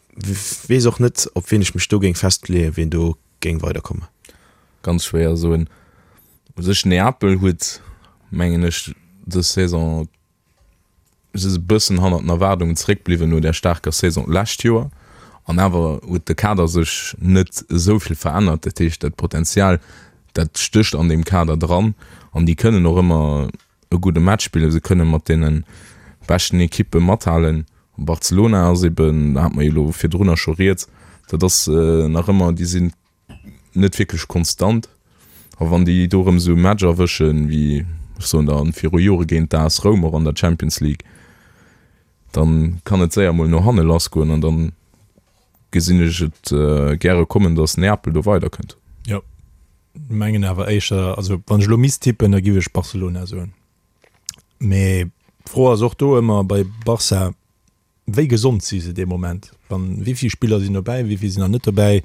weess och net, op wien ech mech do géing festleeën, wien do géing weiderkommen. Ganz schwéier soen. U sech Neapel huet, mengen ech, dës Saison si se e bëssen hannert den Erwaardungen zeréckbliwwen no där staarker Saison d'lescht Joer. An awer huet de Kader sech net esou vill verännert. Dat heescht, dat Potenzial, dat stécht an deem Kader dran an déi kënnen och ëmmer e gudde Match spillen. Se kënne mat deene beschten Ekippe mathalen. Barcelona ass eben, da hate mer jo elo virdrunner scho rieds, dat ass nach ëmmer, déi sinn net wierklech konstant. A wann déi do erëm esou e Match erwëschen, wéi ech soen der viru Jore géint d'AS Roum och an der Champions League, dann kann et séier mol no hanne lassgoen an dann gesinn ech et gäre kommen, datt Neapel do weiderkënnt. Jo, mengen awer éischter, also wann ech elo misst tippen, da giff ech Barcelona soen. Mee d'Fro ass och do ëmmer bei Barça, Wéi gesond si se dee Moment? Wann, wéi vill Spiller sinn dobäi, wéi vill sinn nach net dobäi?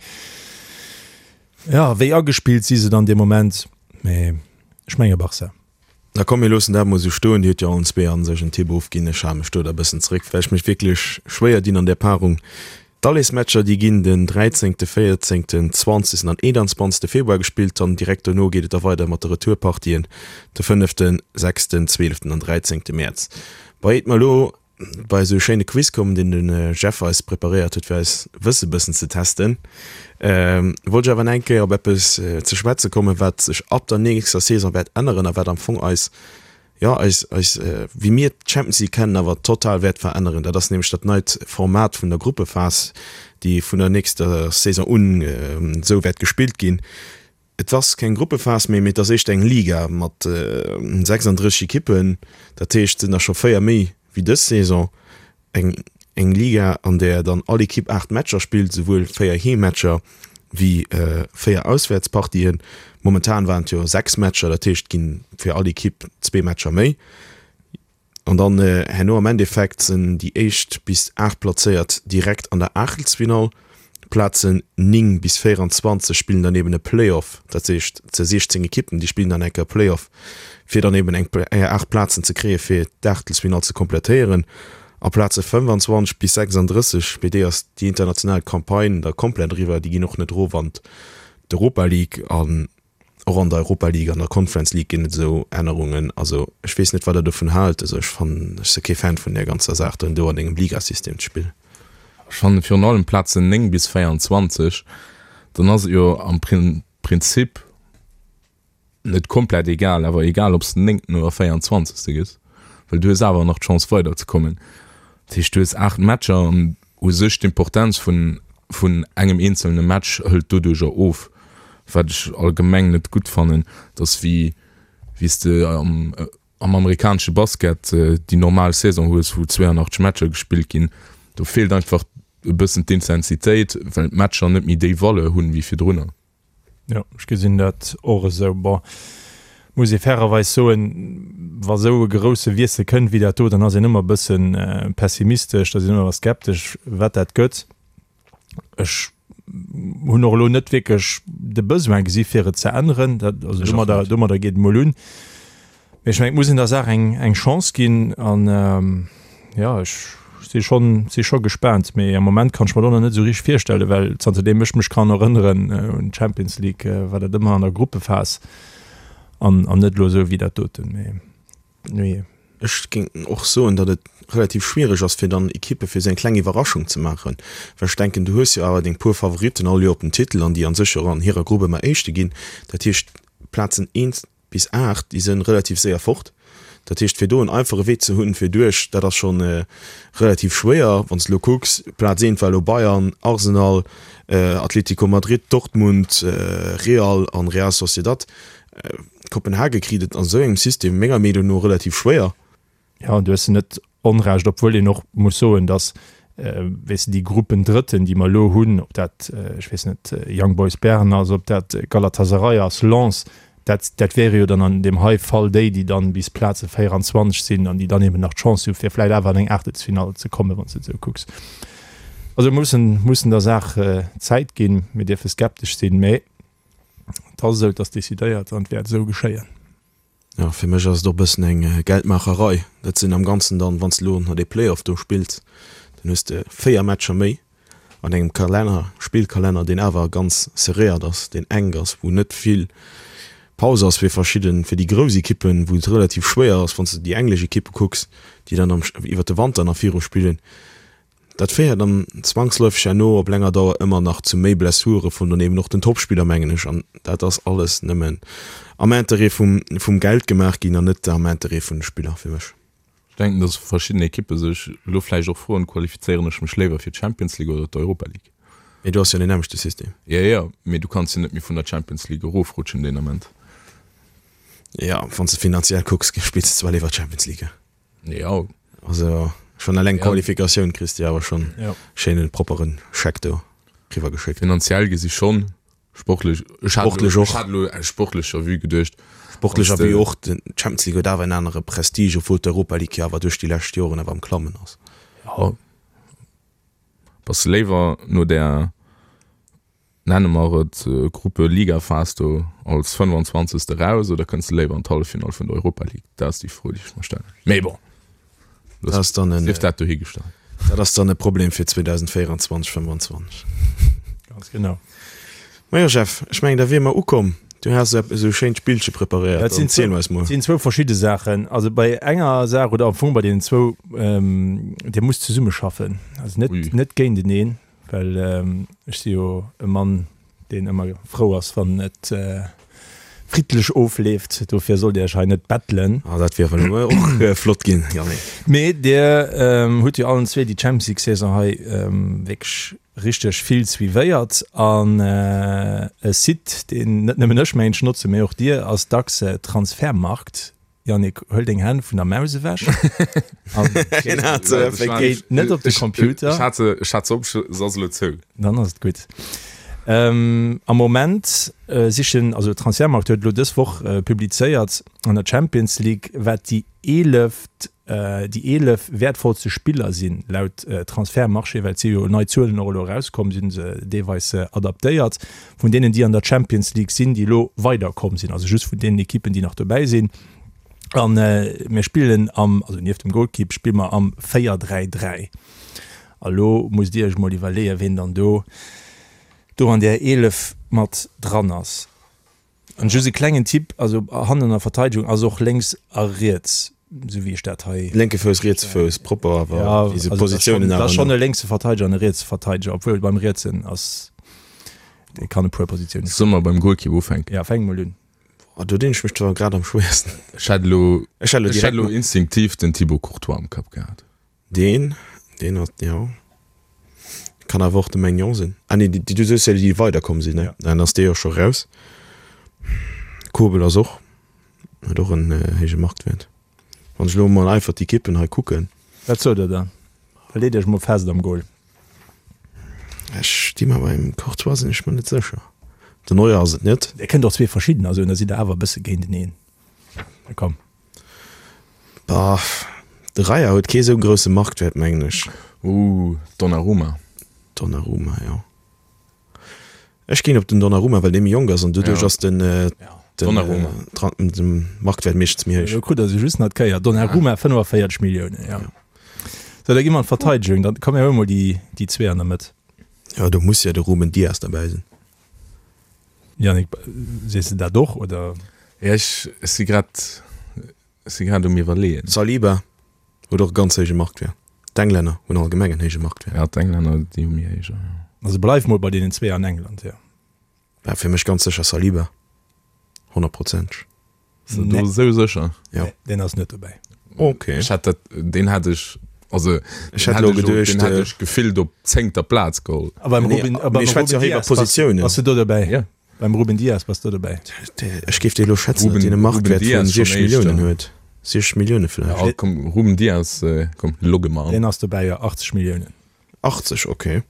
Jo, wéi agespillt si se dann dee Moment? Mee ech menge Barça. Da komm mir loossen dat mol esou stoen. Dir hutt jo allen zwee a sech en Tipp ofginn. Ech hale mech do da bëssen zeréck, well ech mech wierklech schwéier dinn an där Paarung. D'Allesmatcher déi ginn den 13., 14., 20. an 21. Februar gespillt. Dann direkt dono geet et da weider mat de Retourpartien de 5., 6., 12. an 13. Mäerz. Bei iert mer elo bei esou e schéine Quiz kommen, deen de Jeff eis preparéiert huet, fir eis Wësse bëssen ze testen, wollt ech awer nach eng Kéier op eppes ze schwätze kommen, wat sech ab der nächster Saison wäert änneren a wat am Fong eis, jo, eis, eis, wéi mir d'Champions League kennen, awer total wäert veränneren. Dat ass nämlech dat neit Format vun der Gruppephas, déi vun der nächster Saison un esou wäert gespillt ginn. Et ass keng Gruppephas méi, mee et ass éischter eng Liga mat 36 Ekippen. Dat heescht, et sinn der scho 4 méi wéi dës Saison. Eng eng Liga, an där dann all Ekipp 8 Matcher spillt, esouwuel 4 Heemmatcher wéi 4 Auswäertspartien. Momentan waren et jo 6 Matcher, dat heescht, et gi fir all Ekipp zwee Matcher méi. An dann herno am Endeffekt sinn déi éischt bis 8 Plazéiert direkt an der Aachtelsfinall. D'Plazen 9 bis 24 spillen dann eben e Playoff, dat heescht ze 16 Ekippen, déi spillen dann eng Kéier Playoff, fir dann eben eng 8 Plazen ze kréie fir d'Aachtelsfinall ze komplettéieren. A Plaze 25 bis 36, bei déi ass déi international Campagne da komplett eriwwer, déi ginn och net erof an d'Europa League an och an der Europa League an der Conference League ginn et esou Ännerungen. Also ech weess net wat der dovun haalt. Also ech fannen, ech si kee Fan vun där ganzer Saach dann do an engem Ligasystem ze spillen. Ech fannen virun allem Plazen 9 bis 24, dann ass et jo am Prinzip net komplett egal, awer egal ob s de Néngten oder Véieranzwanzegste gëss, well du hues awer nach d'Chance weiderzekommen. Dat heescht, du hues 8 Matcher an u sech d'Importenz vun vun engem eenzelne Match hëlt doduercher of, wat ech allgemeng net gutt fannen. Et ass wéi wéi s de am am amerikanesche Basket déi normal Saison hues, wou 82 Matcher gespillt ginn. Do feelt einfach e bëssen d'Intensitéit, well d'Matcher net méi déi Valeur hunn wéi virdrunner. Jo, ech gesinn dat och esou. Bon, muss ee fairerweis soen, wa sou e grousse Wiessel kënnt wéi dat do, dann ass een ëmmer e bësse pessimistesch, da sinn ëmmer skeptesch, wat dat gëtt. Ech hunn och elo net wierklech de Besoin gesi fir et ze änneren. Dat, also domadder, domadder geet et mol un. Mee ech mengen, et muss een der Saach eng, eng Chance ginn an jo, ech si schonn, si scho gespaant. Mee am Moment kann ech mer dat och nach net esou richteg virstellen, well zanterdeem ech mech kann erënneren un d'Champions League, war dat ëmmer an der Gruppephas an, an net elo esou wéi dat doten. Mee nujee. Ech géing och soen, datt et relativ schwiereg ass, fir dann Ekippe fir esou eng kleng Iwwerraschung ze maachen, well ech denken, du hues jo awer deng puer Favoritten all Joer op den Titel an déi a sech och an hirer Grupp ëmmer Éischte ginn. Dat heescht, d'Plazen 1 bis 8, déi sënn relativ séier fort. Dat heescht, fir do en einfache Wee ze hunn fir duerch, dat ass schonn relativ schwéier. Wann s de elo kucks, Plaz 1 war elo Bayern, Arsenal, Atlético Madrid, Dortmund, Real an Real Sociedad. Kopenhage kritt et an esou engem System menger Meenung no relativ schwéier. Jo, du hues net Onrecht, obwuel een och muss soen, datt, weess de, déi Gruppendrëtten, déi mer elo hunn, ob dat, ech weess net, Young Boys Bern ass, ob dat Galatasaray ass, Lens, dat, dat wäre jo dann an deem hei Fall déi, déi dann bis Plaze 24 sinn an déi dann eben nach d'Chance hu fir vläicht awer an eng Aachtelsfinall ze kommen, wann s de et esou kucks. Also mir mussen, mussen der Saach Zäit ginn. Mir dierfe skeptesch sinn, mä et ass esou, et ass decidéiert an et wäert esou geschéien. Jo, fir mech ass et och e bëssen eng Geldmaacherei. Dat sinn am Ganzen dann, wann s de elo nach dee Play-off do spills, dann hues de 4 Matcher méi an engem Kalenner, Spillkalenner, deen awer ganz serréiert ass, deen enk ass, wou net vill Paus ass fir verschidden, fir déi grouss Ekippen, wou et relativ schwéier ass, wann s de déi englesch Ekippe kucks, déi dann am iwwert de Wanter nach viru spillen. Dat féiert dann zwangsläufeg herno op länger Dauer ëmmer nach zu méi Blessure vun dann eben och den Topspiller, mengen ech. An dat ass alles nëmmen am Interêt vum, vum Geld gemaach ginn an net am Interêt vun de Spiller, fir mech. Ech denken, dass verschidden Ekippe sech elo vläicht och froen, Qualifizéieren ech mech léiwer fir d'Champions League oder d'Europa League? Mee do ass jo deen nämmlechte System. Jo, jo, mee du kanns jo net méi vun der Champions League erofrutschen deen Ament. Jo, wann s de finanziell kucks, spills de zwar léiwer Champions League. Jo. Also schon eleng Qualifikatioun kriss de awer schon ja. schéinen propperen Scheck do riwwer geschéckt. Finanziell gesi schon, sportlech ech hat Sportlech och. Ech hat elo aus sportlecher Vue geduecht. Sportlecher Vue och, den Champions League huet awer en anere Prestige, obwuel d'Europa League jo awer duerch déi lescht Joren awer am Klammen ass. Jo. Bass de léiwer no där Nenne mer et Gruppe-Liga-Phas do als 25. Eraus oder kënns de léiwer an d'Halleffinall vun der Europa League? Dat ass déi Fro, déi ech mer stellen. Mee bon, Dat ass dann en, sief dat dohigestallt. dat ass dann e Problem fir 2024, 25. Ganz genau. Majo Jeff, ech mengen da wier mer ukomm. Du has eppes esou schéint Spillche preparéiert, Dat sinn dann ziel eis mol. sinn zwou verschidde Saachen. Also bei enger Saach oder am Fong bei deenen zwou, ähm, Dir musst zesummeschaffen, also net, Ui. net géinteneen. Well ech si jo e Mann, deen ëmmer frou ass, wann et friddlech ofleeft. Dofir sollt Dir Iech hei net bettelen. Ah, dat wier awer elo och flott ginn, Yannick. Mee Dir hutt jo allen zwee déi Champions League-Saison hei wierklech richteg vill suivéiert. An e Site, deen net nëmmen ech mengen ech notzen, mee och Dir, ass dacks Transfermarkt. Yannick, huel deng Hänn vun der Maus ewech an géi net op de Computer. Ech hat se, ech hat se op, se ass elo zou. Dann ass et gutt. Ähm, am Moment sichen, also Transfermarkt huet elo dës Woch publizéiert an der Champions League, wat déi eeleft, déi 11 wäertvollste Spiller sinn, laut Transfermarché, well et si jo nei Zuelen och elo erauskomm, si se deelweis adaptéiert, vun deenen, déi an der Champions League sinn, déi elo weiderkomm sinn, also just vun deenen Ekippen, déi nach dobäi sinn. An mir spillen am, also nieft dem Golkipp spille mer am 4-3-3. A lo musst Dir Iech mol iwwerleeën, ween dann do do an där 11 mat dran ass. An just e klengen Tipp, also hannen an der Verteidegung ass och lénks a riets, esou wéi ech dat hei. Lénke Fouss, rietse Fouss, propper awer, Ja, wéi se Positiounen awer. Dat ass schonn e lénkse Verteideger an e rietse Verteideger, obwuel beim rietsen ass, dee kann e puer Positiounen spillen. Solle mer beim Golkipp ufänken? Ja, fänk mol un. Boah, do dinn ech mech zwar grad am schwéiersten. Ech hätt elo, ech hätt elo instinktiv den Thibaut Courtois am Kapp gehat. Deen, deen ass, jo. Kann awer och de Maignan sinn. Ah nee, déi, du soos jo déi, déi weiderkomm sinn, ne? Dann ass dee jo scho raus. Kobel ass och, huet och en héije Marktwäert. Wann ech elo mol einfach d'Ekippen hei kucken. Wat sot der dann? Da leet iech mol fest am Goal. Ech sti mer beim Courtois sinn ech mer net sécher. Den Neuer ass et net. Dir kënnt och zwee verschiddener soen, da sidd der awer e bësse géinteneen. Na komm. Bah, de Raya huet kee sou grousse Marktwäert, mengen ech. Ooh, Donnarumma. Donnarumma, jo. Ech ginn op den Donnarumma, well dee méi jonk ass an doduerch ass den, den, den Marktwäert meeschtens méi héich. Elo krut der se just nach d'Kéier. Donnarumma 45 Milliounen, jo. Sou, da gi mer an d'Verteidegung. Dann komm mir huele mol déi, déi zwee an der Mëtt. Jo, do muss jo de Ruben Dias derbäi sinn. Yannick, sees de dat och, oder? Ja, ech si grad, ech si grad um Iwwerleeën. Saliba huet och e ganz héije Marktwäert. D'Englänner hunn allgemeng en héije Marktwäert. Ja, d'Englänner, déi hu méi héijer, jo. Also bleiw mol bei deenen zwee an England, jo. War fir mech ganz sécher Saliba, honnertprozenteg. Ass de do esou sécher? Jo. Nee, deen ass net dobäi. Ok. Ech hätt dat, deen hätt ech, also Ech hätt elo geduecht, deen hätt ech gefillt op zéngter Plaz geholl. A beim Nee, Ruben, a beim mir schwätze Ruben jo hei iwwer Dias bass, Positiounen. bass du do dobäi? Ja. Beim Ruben Dias bass du dobäi? Ech géif dir elo schätzen, datt Ruben, deen e Ruben Marktwäert vun Dias schon 60 Milliounen éischter. huet. 60 Millioune vläicht. Ja, komm, Ruben Dias, komm, logge mer an. Deen ass dobäi, jo, 80 Milliounen. 80, ok.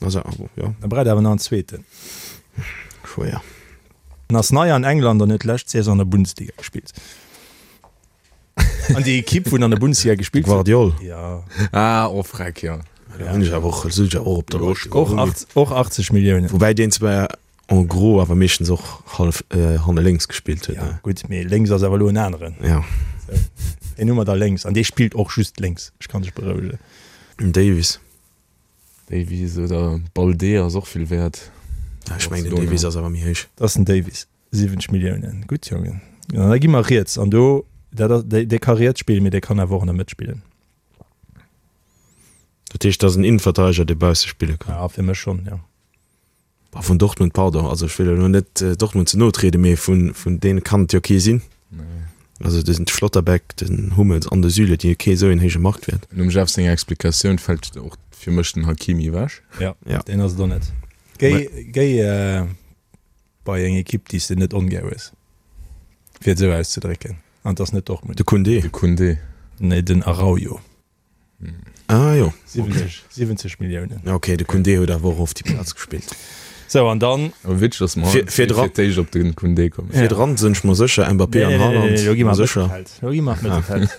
Also, jo. Da braucht awer nach en zweeten. Schwéier. En ass nei an England an huet d'lescht Saison an der Bundesliga gespillt. An déi Ekipp, wou en an der Bundesliga gespillt huet. Gvardiol. Ja. Ah, oh freck, jo. Da hunn ech awer och, sot ech awer och op der Lëscht. Och 80, och 80 Milliounen. Woubäi deen zwar en gros awer meeschtens och hallef hanne lénks gespillt huet, Ja, ne? gutt, mee lénks ass awer elo en aneren. Ja. Sou, deen hu mer da lénks an dee spillt och just lénks. Ech kann dech berouegen. Den Davies. Davies oder Balde ass och vill wäert. Ja, ech mengen den Davies ass awer méi héich. Dat ass den Davies, 70 Milliounen. Gutt, Jongen. An da gi mer riets an do, dat ass, dee ka riets spillen, mee dee kann awer och an der Mëtt spillen. Dat heescht, dat ass en Innenverteideger, dee bausse spille kann? Ja, fir mech schonn, jo. Bah, vun Dortmund, pardon, also ech wëll elo net Dortmund ze no trieden, mee vun, vun deene kann et jo kee sinn. Also de Schlotterbeck, den Hummels an de Süle, déi hu kee esou een héije Marktwäert. Nom Jeff senger Explikatioun fält och fir mech den Hakimi ewech. Ja, Ja. deen ass et och net. Géi, géi bei eng Ekipp, déi s de net ongär hues, fir et esou auszedrécken, an et ass net Dortmund. De Koundé. De Koundé. Nee, den Araujo. Ah jo. 70, 70 Milliounen. Ok, de Koundé huet awer och oft déi Plaz gespillt. Sou, an dann. Awer witzeg, dass mer Fir, fir dran. fir d'éischt op den Koundé kommen. Fir dran sinn ech mer sécher, Mbappé an Haaland. Nee, nee, lo gi mer sécher. Mëttelfeld. Lo gi mer Mëttelfeld.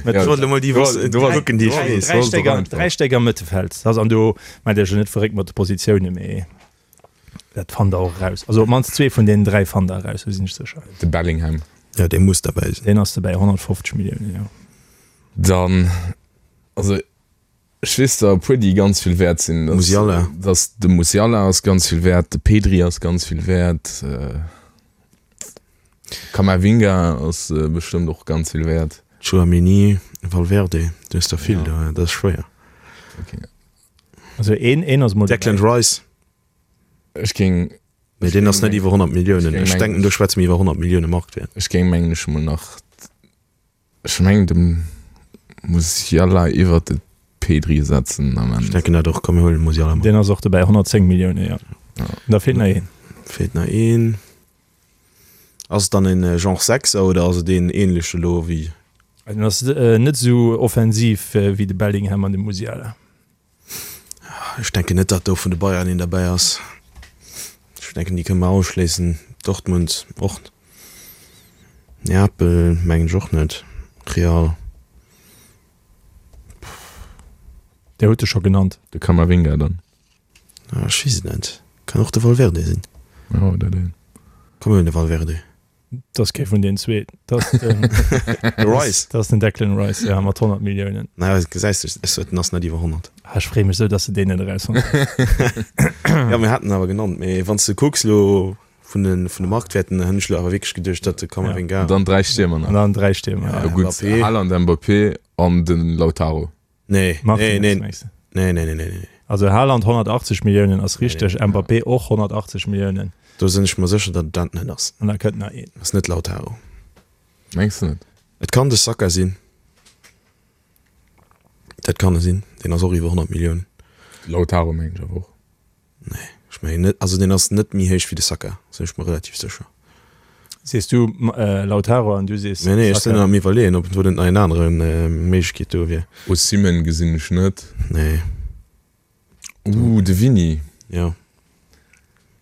Ech wollt elo mol déi Woss, Du warst, kucken, déi ech weess. Dräi Stéck am, dräi Stéck am Mëttelfeld. Das, an do mengt Iech jo net verréckt mat de Positiounen, mee dat fannt Der och eraus. Also op d'mannst zwee vun deenen dräi fannt Der eraus, do sinn ech sécher. De Bellingham. Jo, dee muss derbäi sinn. Deen ass dobäi, 150 Milliounen, jo. Dann, also ech weess der e puer déi ganz vill wäert sinn. Musiala. Dass de Musiala ass ganz vill wäert, de Pedri ass ganz vill wäert, Camavinga ass bestëmmt och ganz vill wäert. Tchouaméni, Valverde, du hues der vill do, dat ass schwéier. Okay. Also een, een ass mol Declan Rice. Ech géing. Mee deen ass net iwwer 100 Milliounen. Ech denken do schwätze mir iwwer 100 Millioune Marktwäert. Ech géing mengen ech mol nach. Ech mengen de Musiala iwwert de Pedri setzen am Ech denken dat och, komm mir huelen de Musiala mat. Deen ass och dobäi, 110 Millioune, jo. Da feelt nach een. Feelt nach een. Ass et dann en Genre Sechser oder ass et een ähnlech elo wéi? En ass net esou offensiv wéi de Bellingham an de Musiala. Ech denken net, datt do vun de Bayern een derbäi ass. Ech denken, déi kënne mer ausschléissen. Dortmund och. Neapel mengen ech och net. Real. Där huet e scho genannt. De Camavinga dann. Ech weess et net. Kann och de Valverde sinn. Jo, oder deen. Komm mir huelen de Valverde. Dat ass kee vun den zwee. Dat ass den, De Rice. dat ass den Declan Rice, ja, mat 100 Milliounen. Naja, gesäis de, ech sot, en ass net iwwer 100. Ah, ech freeë mech sou, dass de deen net erausfonnt hues. Ja, mir haten en awer genannt. Mee wann s de kucks elo vun de, vun de Marktwäerten, hunn ech elo awer wierklech geduecht, datt de Camavinga. An dann 3 Stiermer nach. An dann 3 Stiermer, ja. Ja, gutt, Mbappé. Haaland, Mbappé an de Lautaro. Nee, nee, Martinez, nee, mengs de? nee, nee, nee, nee, nee. Also Haaland 180 Milliounen ass richteg, Mbappé och 180 Milliounen. Do sinn ech mer sécher, datt et dat net ass. An da kënnt nach een. Ass net Lautaro. Mengs de net? Et kann de Saka sinn. Dat kann e sinn. Deen ass och iwwer 100 Milliounen. Lautaro mengen ech awer och. Nee, ech mengen net. Also deen ass net méi héich wéi de Saka, sinn ech mer relativ sécher. Sees du Lautaro an du sees Saka? Nee, nee, ech sinn am iwwerleeën, ob do net nach een anere Méiglechkeet do wier. Osimhen gesinn ech net. Nee. Ooh, de Vini. Jo.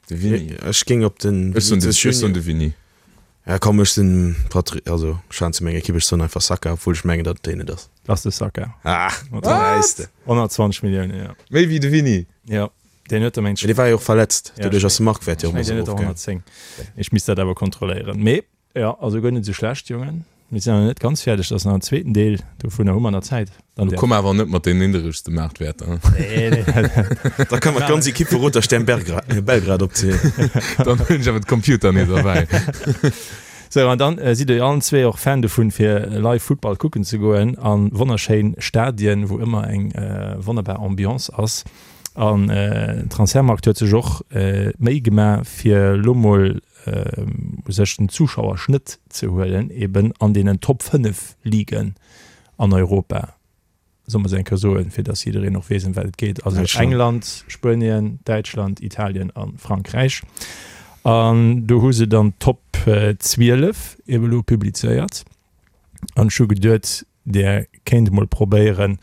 De Vini. Ech géing op den Ech soen de, ech soen de Vini. Ja komm, ech sinn Patri, also ech schwätzen zu menger Ekipp, ech soen einfach Saka, obwuel ech mengen, datt et deen net ass. Ass de Saka. Ah, gesäis de. 120 Milliounen, jo. Méi wéi de Vini. Jo, deen huet der mengt. Mee dee war jo och verletzt, doduerch ass de Marktwäert jo och Ech mengen, deen huet der 110. Ech misst dat awer kontrolléieren. Mee jo, also guer net esou schlecht, Jongen. Mir sinn nach net ganz fäerdeg, dat ass nach en zweeten Deel, dovunner hu mer nach Zäit. Dann däerf. Komm awer net mat den nidderegste Maartwäerter. Nee, nee. Da kann mer d'ganz Ekipp vu Roter Stern Belgrad opzielen. Dann hunn ech awer de Computer nees erbäi. Sou, an dann sidd Dir jo allen zwee och Fan dovun, fir live Futtball kucken ze goen a wonnerschéin Stadien, wou ëmmer eng wonnerbar Ambiance ass. An Transfermarkt huet sech och d'Méi gemaach, fir elo mol u sech den Zuschauerschnëtt ze huelen, eben an deenen Top 5 Ligen an Europa, soll mer se eng Kéier soen, fir datt jiddereen och weess, ëm wat et geet, also England, Spuenien, Däitschland, Italien a Frankräich. An do hu se dann d'Top 12 ebe lo publizéiert. An ech hu geduet, Der kéint emol probéieren,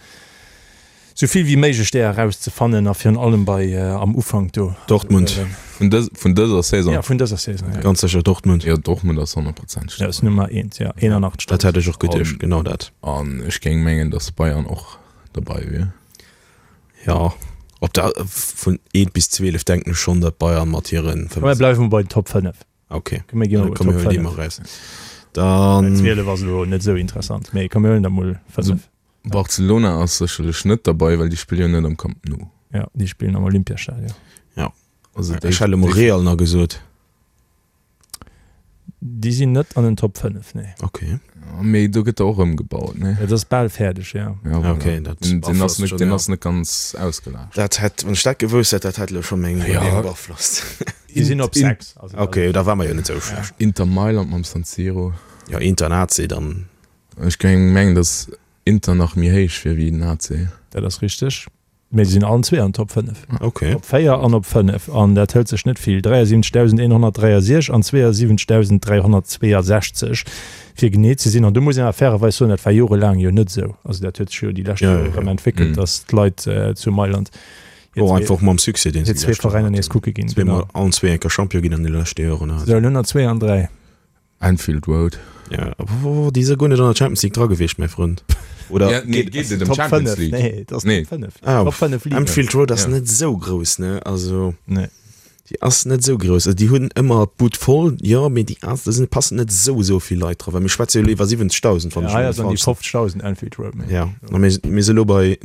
sou vill wéi méiglech där erauszefannen a virun allem bei am Ufank do. Dortmund. Vun dës, vun dëser Saison? Ja, vun dëser Saison, ja. Ganz sécher Dortmund. Jo, Dortmund ass honnertprozenteg Ja, ass Nummer eent, ja, 81. Dat hätt ech och geduecht, genau dat. An ech géing mengen, datt Bayern och derbei wier. Jo, op der, vun eent bis 12 denken ech schonn, datt Bayern mat hiren Komm, mir bleiwe mol bei den Top 5. Ok, Komm, mir gi mol komm, mir Top huelen déi 5. mol raus. Dann. 12 ass elo net esou interessant, mee komm, mir huelen der mol 5. Barcelona ass sécherlech net derbei, well déi spille jo net am Camp Nou. Ja, déi spillen am Olympiastadion. Ja. Also déi, Ech hätt elo mol déi, Real nach gesot. Déi sinn net an den Top 5, nee. Ok. Mee do gëtt der och ëmgebaut, nee? Et ass bal fäerdeg, ja. Ja, voilà. Ok, dat Den, den ass beaflosst net, schon, den ja. ass net ganz ausgelaascht. Dat hätt, wann ech dat gewousst hätt, dat hätt elo scho meng Ja. Iwwerleeung beaflosst. Déi sinn op 6. Also Ok, da war mer jo net esou schlecht. Inter Mailand mam San Siro. Jo, Inter an AC dann. Ech géing mengen, datt Inter nach méi héich wier wéi den AC. Dat ass richteg. Mee se sinn allen zwee an Top 5. Ok. Op 4 an op 5. An dat hëlt sech net vill, 73.163 an 72.362 fir genee ze sinn. An do muss een awer fairerweis soen, dat war jorelaang jo net esou. Also dat huet sech jo déi lescht Ja, Jore ja, erëm ja. entwéckelt, datt d'Leit zu Mailand hir Och zwee, einfach mam Succès, deen hir se déi zwee lescht Joren Veräiner nees haten. kucke ginn. Zweemol, Genau. allen zwee eng Kéier Champion ginn an de leschte Joren. Sou, elo nach zwee an dräi. Anfield Road. Ja, oh, déi si guer net an der Champions League dra gewiescht, mäi Frënd. Oder Ja, nee, geet et ëm Top Champions 5, League? nee, dat ass Nee. Top 5. Ah, Top 5 Ligen. Anfield Road ass Ja. net esou grouss, ne? Also, Nee. déi ass net esou grouss. Also, déi hunn ëmmer d'Bud voll, jo, mee déi ass, do sinn, passen net esou, esou vill Leit dra. Well mir schwätze jo elo iwwer 70.000, wann Ja, ech hei mech ass an déi net falsch. 50.000 Anfield Road, mengen Ja, ech. a mir, mir si elo bei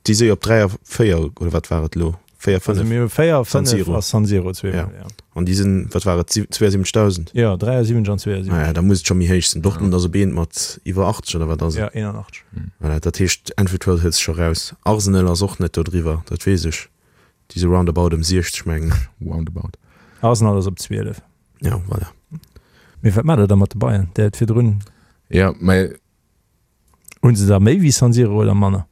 Déi si op 3 a 4, oder wat war et elo? 4, 5. Also mir hu 4, San 5 Siro. a San Siro zweemol, Ja. ja. An déi sinn, wat war et, 72.000? Ja, 73 an 72. Ah ja, da muss et scho méi héich sinn. Dortmund ass op eent mat iwwer 80, oder wat ass et? Ja, 81. Voilà, dat heescht, Anfield Road hëlt sech scho raus. Arsenal ass och net do driwwer, dat weess ech. Déi si roundabout ëm 60, mengen ech. Roundabout. Arsenal ass op 12. Ja, voilà. Mee wat maacht der da mat de Bayern? Där huet virdrun. Ja, mä Hunn se der méi wéi San Siro oder manner?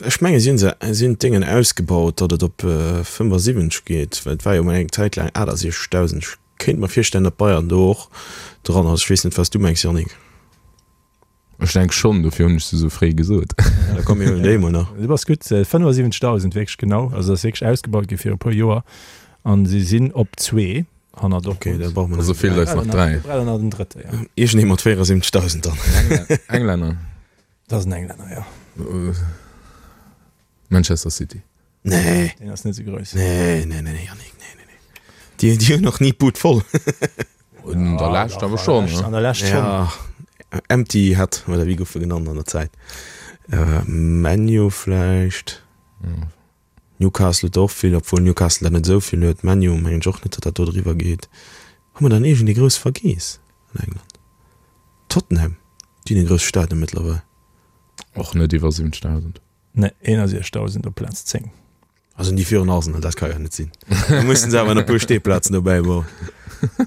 Ech menge si hunn se si hunn d'Déngen ausgebaut, datt et op 75 geet, well et war jo mol eng Zäit laang 68.000. Ech kéint mer virstellen, datt Bayern do och dran ass. Ech weess net, wat s du mengs, Yannick. Ech denk schonn, dofir hunn ech se esou fréi gesot. Da komm mir huelen déi emol nach. Du bass gutt, 75.000 wierklech genau. Also ass wierklech ausgebaut gi fir e puer Joer an si sinn op zwee. Hannert Ok, da brauche mer Also nach feelt eis nach 3. Wir brauchen nach den drëtte, ja. Iergendee mat 74.000 dann. Englänner. Dat ass en Englänner, ja. Manchester City. Nee. Deen ass net esou grouss. Nee, nee, nee, Yannick, nee, nee, nee. Déi, déi hunn nach ni d'Bud voll. An der Lescht awer schonn, ne? An der Lescht schonn. Ja, Empty Head, oder wéi gouf e genannt an der Zäit? ManU vläicht? Newcastle huet der och vill, obwuel Newcastle der net esou vill huet. ManU mengen ech och net, datt dat do driwwer geet. Hu mer dann iergendee grouss vergeess an England? Tottenham, déi hunn e grousse Stadion mëttlerweil. Och net iwwer 70.000. Nee, 61.000 op Plaz 10. Also déi virun Arsenal, dat ka jo net sinn. Da mussen se awer nach e puer Steeplazen dobäi bauen.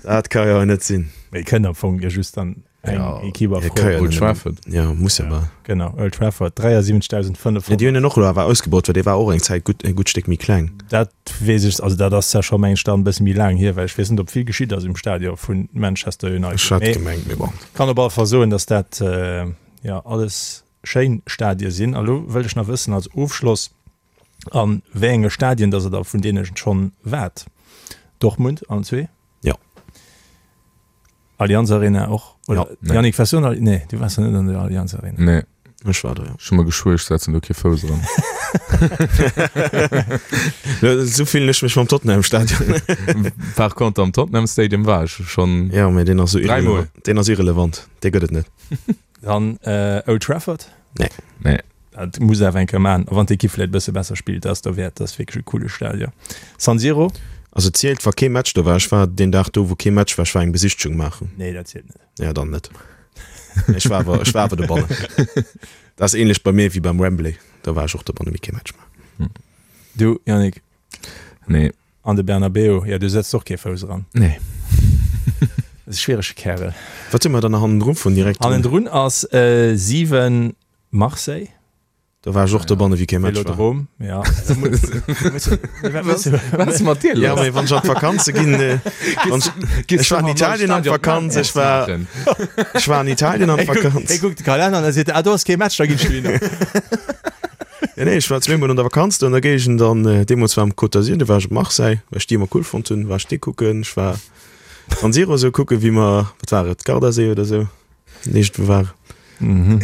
Dat ka jo net sinn. Mee kënnt am Fong jo just dann eng Ja, Equipe a Ja, Fro. ka jo Old net. Trafford. Ja, muss ja bal. Genau, Old Trafford, 73.500. Ja, déi hunn en och elo awer ausgebaut, well dee war och eng Zäit gutt, e gutt Stéck méi kleng. Dat weess ech, also dat ass ja scho meng ech dann e bësse méi laang hier, well ech weess net, ob vill geschitt ass um Stadion vu Manchester United. Ech hat Mee gemengt, mee bon. kann op alle Fall soen, datt dat jo alles schéin Stadie sinn. A lo wëllt ech nach wëssen als Ofschloss, A wéi enge Stadien dass der da vun deene schonn waart? Dortmund allen zwee? Jo. Allianz Arena och? Oder Nee. Yannick, waars du an der, nee, du waars net an der Allianz Arena. Nee. Ech war do, jo. Ech hu mer geschwuer, ech setzen do kee Fouss eran. Esou fillen ech mech mam Tottenham Stadion. Par contre am Tottenham Stadium war ech schonn. Jo, mee deen ass esou Dräimol. irrelevant. Deen ass irrelevant, dee gëtt et net. Dann Old Trafford? Nee. Nee. Dat muss awer eng Kéier maachen, a wann d'Ekipp vläicht e bësse besser spillt, dat ass derwäert, dat ass wierklech e coole Stadion. San Siro? Also zielt wa kee Match do war. Ech war deen Dag do wou kee Match war, ech war eng Besichtegung maachen. Nee, dat zielt net. Ja, dann net. Ech war awer, ech war awer dobannen. Dat ass ähnlech bei mir wéi beim Wembley, do war ech och dobannen, mee kee Match maachen. Du Yannick? Nee. An de Bernabeu, jo, du setzt och kee Fouss eran. Nee. Dat ass e schwierege Kärel. Wat hu mer dann nach hannendru vun direkt? Hannendrun ass 7 Marseille. Do war ech och dobanne wéi kee Match war. Velodrom, ja. Wat ass mat dir lass? Ja, mee wann ech an d'Vakanze ginn, ech war an Italien an d'Vakanz, ech war, ech war an Italien an d'Vakanz. Hie kuckt de Kalenner an da seet e, ah do ass kee Match, da ginn ech dohinner. Ja, nee, ech war zweemol an der Vakanz do an der Géigend an deemools war am Côte d'Azur, do war ech op Marseille, well ech déi ëmmer cool fonnt hunn, war ech déi kucken. Ech war San Siro esou kucken, wéi mer, wat war et, Gardasee oder esou, iergendwou war. Mhm.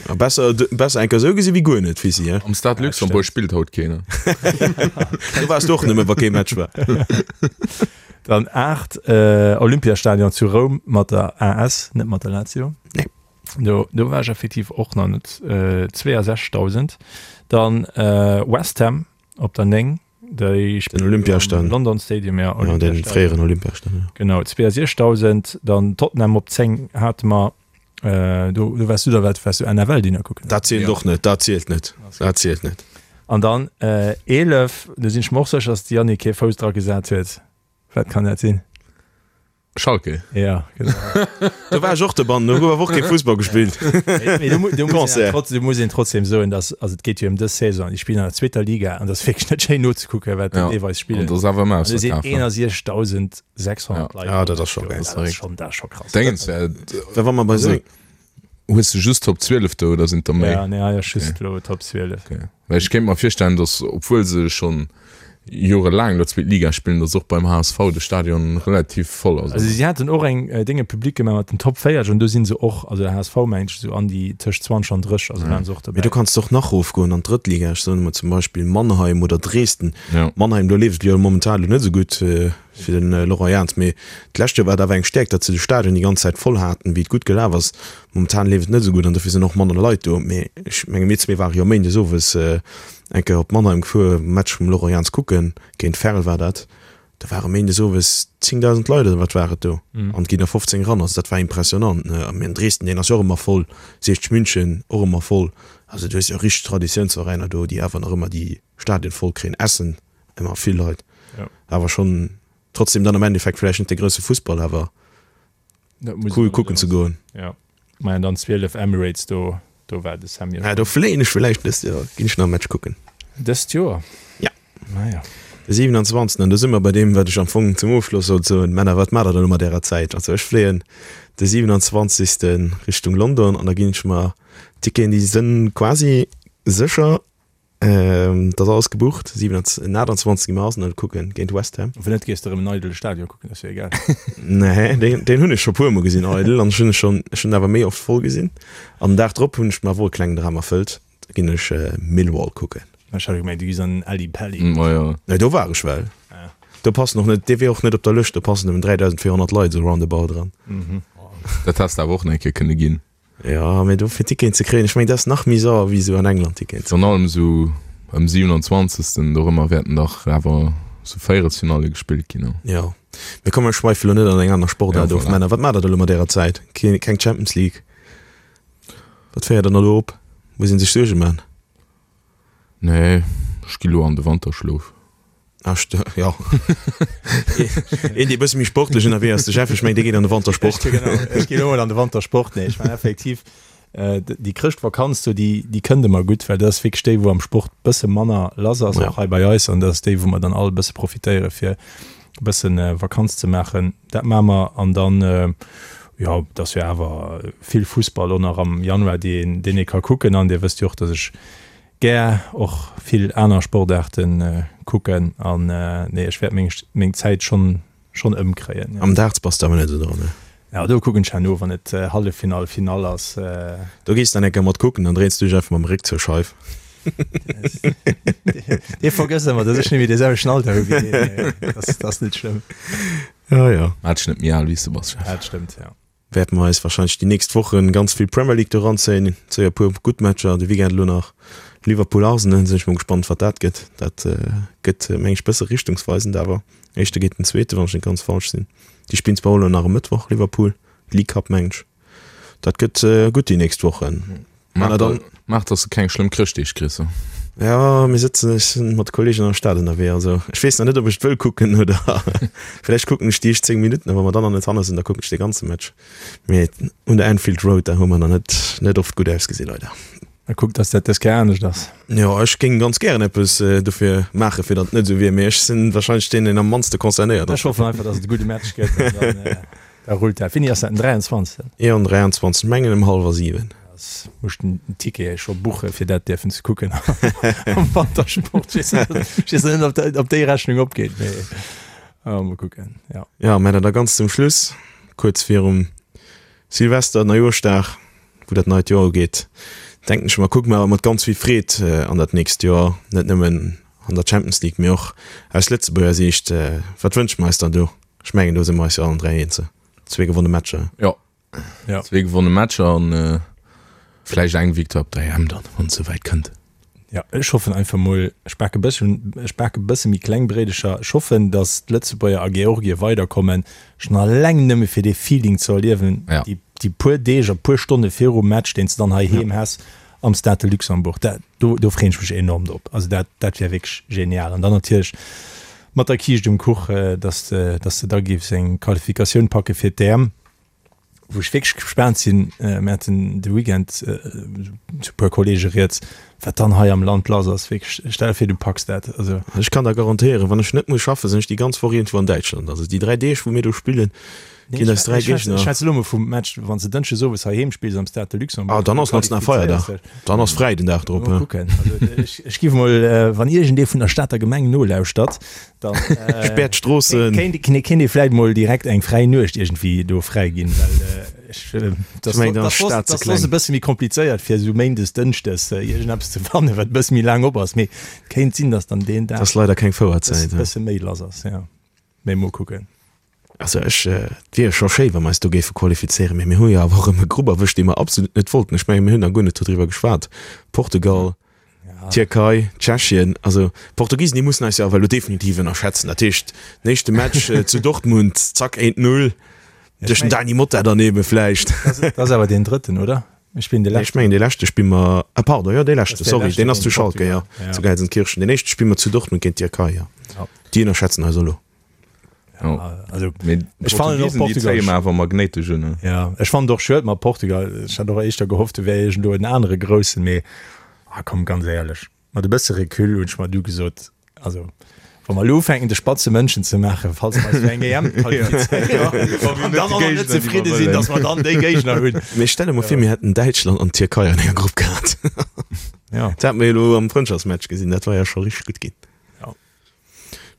A besser, besser eng Kéier esou gesi wéi guer net, Fisi, he? Am Stade Luxembourg spillt haut keen. Do waars du och nëmme, wa kee Match war. Dann 8, Olympiastadion zu Roum mat der AS, net mat der Lazio. Nee. Do, do war ech effektiv och nach net. Äh, 62.000. Dann äh, West Ham op der 9. Déi Den Olympiastadion. London Stadium, ja. Ja, den fréieren Olympiastadion. Ja. Genau, 62.000. Dann Tottenham op 10 hate mer. Äh, do, do waars du da, wat waars du NFL-Dinner kucken? Dat zielt Ja. och net, dat zielt net, dat zielt net. An dann äh, 11, do sinn ech mer och sécher, dass de Yannick kee Fouss dra gesat huet. Wat kann dat sinn? Schalke. Ja, genau. Do war ech och dobannen, do gouf awer och kee Fussball gespillt. Mee do, do muss een Concert. trotzdem, muss een trotzdem soen, dass, also et geet jo ëm dës Saison, déi spillen an der zweeter Liga an dat ass wierklech net schéin nozekucken, wat déi Ja. deelweis An spillen. dat ass awer ëmmer An do sinn ausverkaf. 61.600 Leit. Ja, dat ass scho geil. Dat ass schonn, dat ass scho krass. Déngens, äh, Well wa mer bei Also, sou hues du just Top 12 do oder sinn der méi? Ja, nee, hei ass just elo Top 12. Okay. Well ech kéint mer virstellen, datt obwuel se schonn jorelaang elo zweet Liga spillen, datt och beim HSV de Stadion relativ voll ass. Also si haten och eng Dénge public gemaach mat den Top 40 an do si se och, also de HSV mengen ech esou an déi tëscht 20 an 30, also waren se och Mee dobäi. do kanns de och nach erofgoen an d'drëtt Liga. Ech soen emol zum Beispill Mannheim oder Dresden. Ja. Mannheim, do leeft et jo momentan elo net esou gutt fir de Laurent Jans, mee d'lescht Joer war et awer eng Stäerkt, datt se de Stadion déi ganz Zäit voll haten, wéi et gutt gelaf ass. Momentan leeft et net esou gutt an dofir sinn och manner Leit do. Mee ech menge mir zwee ware jo méindes owes eng Kéier op Mannheim gefuer, Match vum Laurent Jans kucken, géint Verl war dat. Do ware méindes owes 10.000 Leit oder wat war et do an et ginn der 15 eran. Also dat war impressionant. A mir an Dresden, deen ass jo och ëmmer voll, 60 München och ëmmer voll. Also du hues jo richteg Traditiounsveräiner do, déi awer nach ëmmer déi Stadien voll kréien. Essen ëmmer vill Leit. Awer schonn trotzdem dann am Endeffekt vläicht net de grousse Fussball, awer cool kucken ze goen. Ja, maja dann 12 Emirates do, do war de Sammy. Ja, do fléien ech villäicht dëst Joer, ginn ech nach e Match kucken. Dëst Joer? Ja. Maja. De 27. An do si mer bei deem, wat ech am Fong zum Ofschloss sollt soen, Männer, wat maacht der dann elo mat ärer Zäit? Also ech fléien de 27. Richtung London an da ginn ech mer Ticketen, déi sënn quasi sécher. Dat ass alles gebucht. 27, 28 gi mer Arsenal kucken géint West Ham. Wann net gees de erëm en eidele Stadion kucken, ass jo egal. Nee, deen, deen hunn ech scho puer mol gesinn eidel an ech hunn e schonn, ech hunn awer méi oft voll gesinn. An den Dag drop hunn ech mer awer och e klengen Dram erfëllt, da ginn ech Millwall kucken. Ech hat gemengt du gees an den Ally Pally. Ma jo. Nee, do war ech well. Ah. Do passen och net, dee wier och net op der Lëscht, do passen nëmmen 3.400 Leit esou roundabout dran. Dat häss de awer och nach eng Kéier kënne ginn. Jo, mee do fir Ticketen ze kréien, ech mengen dat ass nach méi sauer wéi esou an England Ticketen ze Virun allem esou ëm 27. Dorëmmer wäerten dach awer esou Véierelsfinalle gespillt ginn. Jo, mee komm mir schweife lo net an eng aner Sportaart of. Männer, wat maacht der da lo mat ärer Zäit? Keen, keng Champions League? Wat féiert der elo op? Muss een sech Suerge man? Nee, ech gi lo an de Wanterschlof. Ah, jo. Een, dee bësse méi sportlech ënnerwee ass, de Jeff, ech mengen, dee geet an de Wantersport. Genau, ech ginn elo mol an de Wantersport. Nee, ech mengen effektiv, déi Chrëschtvakanz do, déi, déi kënnt ëmmer gutt, well dat ass wierklech déi, wou am Sport bësse manner lass ass, och hei bei eis. An dat ass déi, wou mer dann all e bësse profitéiere fir e bësse Vakanz ze maachen. Dat maache mer. An dann, jo, et ass jo awer vill Fussball och nach am Januar, dee een, deen ee ka kucken. An Dir wësst jo och, datt ech Gär och vill aner Sportaarten kucken an nee ech wäert meng meng Zäit schonn schonn ëmkréien. Am Darts bass de awer net esou dran ne? Jo do kucken ech herno wann et Halleffinall, Finall ass. Do gees dann eng Kéier mat kucken, dann dréins du dech einfach mam Réck zur Scheif. Dee vergësst ëmmer dass ech net méi dee selwechten Alter hu wéi deen, dat ass net schlëmm. Jo jo. Maach dech net méi al wéi s de bass Jeff. Dat stëmmt jo. Wäerte mer eis wahrscheinlech déi nächst Wochen ganz vill Premier League do ranzéien. Zéi e puer gutt Matcher de Weekend elo nach Liverpool Arsenal, sinn ech mol gespannt wat dat gëtt. Dat gëtt meng ech bësse richtungsweisend awer. Éischte géint den zweete wann ech net ganz falsch sinn. Déi spillen zwar och elo nach e Mëttwoch Liverpool, League Cup meng ech. Dat gëtt gutt déi nächst Wochen. Maach, da, maach dass de keng schlëmm Chrëschtdeeg kriss. Ja, mir sëtzen, ech sinn mat Kollegen an der Stad ënnerwee, also ech weess nach net, ob ech et wëll kucken oder vläicht kucken ech déi éischt 10 Minutten, a wa mer dann nach net hanne sinn, da kucken ech de ganze Match. Mee un der Anfield Road, da hu mer nach net, net oft gutt ausgesinn, leider. Mä kuck, dass dat dës Kéier anescht ass. Jo, ech géing ganz gären eppes dofir maachen, fir datt et net esou wier, mee ech sinn wahrscheinlech deen, deen am mannste concernéiert ass. Ech hoffen einfach, dass et e gudde Match gëtt an dann. Da rullt dat. Wéini ass dat? Den 23.? Jo, den 23. Mengen ëm hallwer 7. Da muss den Ticket scho buche fir dat dierfen ze kucken am Wantersport. Ech weess net, ob dat, ob déi Rechnung opgeet, mee mol kucken, jo. Jo, mä da ganz zum Schluss, kuerz virum Silvester, Neijoerschdag, wou dat neit Joer ugeet, denken ech mer, kucke mer awer mat ganz vill Freed an dat nächst Joer, net nëmmen an der Champions League, mee och aus Lëtzebuerger Siicht. Wat wënsche mer eis dann do? Ech mengen do si mer eis jo allen 3 eens. Zwee gewonne Matcher. Jo. Ja. Zwee gewonne Matcher an äh, vläicht eng Victoire op der EM dann, wann et souwäit kënnt. Ja, ech hoffen einfach mol, ech bake bëssen, ech bake bësse méi kleng Bréidecher. Ech hoffen, datt d'Lëtzebuerger a Georgie weiderkommen, schonn alleng nëmme fir dee Feeling ze erliewen, Ja. déi, déi puer Deeg a puer Stonne virum Match, deen s de dann heiheem häss am Stade de Luxembourg. Dat, do, do freeën ech mech enorm drop. Also dat, dat wär wierklech genial. An dann natierlech mat der Kiischt um Kuch, dass de, dass de da géifs eng Qualifikatioun packe fir d'EM, wou ech wierklech gespaant sinn, mir haten de Weekend zu e puer Kollege rieds, wat dann hei am Land lass ass. Wierklech, stell der vir, du packs dat. Also. Ech kann der garantéieren, wann ech net muss schaffen, sinn ech déi ganz Woch iergendwou an Däitschland. Also déi 3 Deeg, wou mir do spillen, Ginn eis 3 Géigner. Ech schwätze elo mol vum Match, wann s de Dënschdes owes heiheem spills am Stade de Luxembourg. Ah, dann ass national Feierdag. Dann ass fräi den Dag drop. Mol kucken. Also ech, ech giff mol, wann iergendee vun der Stater Gemeng nolauschtert, dann Späert d'Stroossen. kéint, kéint ee vläit mol direkt eng fräi Nuecht iergendwéi do fräi ginn, well ech, dat Ech mengen, dann ass d'Stad ze ass soss kleng. e bësse méi komplizéiert fir esou méindes, dënschdes iergendeppes ze fannen, wat e bësse méi laang op ass. Mee et kéint sinn, datt dann deen Dag. Ass leider keng Fouerzäit. E bësse méi lass ass, jo. Mee mol kucken. Also ech, et wier jo scho schéi, wa mer eis do géife qualifizéieren, mee mir hu jo awer och erëm e Grupp erwëscht, dee mer absolut net wollten. Ech menge mir hunn nach guer net dodriwwer geschwat, Portugal, Tierkei, Tschechien. Also d'Portugisen, déi mussen eis jo awer elo definitiv ënnerschätzen. Dat heescht, den éischte Match zu Dortmund, zack, 1, 0 duerch den Dany Motta dann ebe vläicht. Dat ass awer deen drëtten, oder? Mir spillen de leschten. Ech mengen dee leschte spille mer, ah pardon, jo dee leschte, sorry, deen ass zu Schalke, jo, zu Gelsenkirchen. Deen éischte spille mer zu Dortmund géint d'Tierkei, jo. Déi ënnerschätzen eis elo. Ja, also ech fannen och Portugal déi awer magnéitesch un. Ja, ech fannen och schued mat Portugal. Ech hat och éischter gehofft, do wär iergendwou en anere groussen, mee ah komm, ganz éierlech, mat e bësse Recul hunn ech mer du gesot, also wa mer elo ufänken de spatze Mënschen ze maachen, falls mer eis fir eng EM qualifizéieren an dann och nach net zefridde sinn, datt mer dann déi Géigner hunn. Mee stell der mol vir, mir hätten Däitschland an d'Tierkei an enger Grupp gehat. Ja. Dat hate mer jo elo am Frëndschaftsmatch gesinn, dat war jo scho richteg gutt ginn. Ja.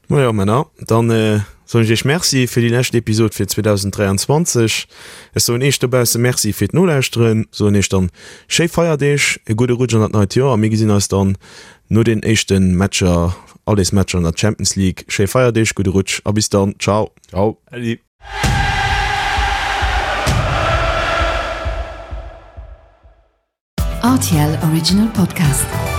Majo Männer, dann. Soen ech iech Merci fir déi lescht Episod fir 2023. Ech soen iech dobausse Merci fir d'Nolauschteren, soen iech dann schéi Feierdeeg, e gudde Rutsch an dat neit Joer a mir gesinn eis dann no den éischte Matcher, Allesmatcher an der Champions League. Schéi Feierdeeg, gudde Rutsch a bis dann. Ciao. Ciao. Äddi. RTL Original Podcast.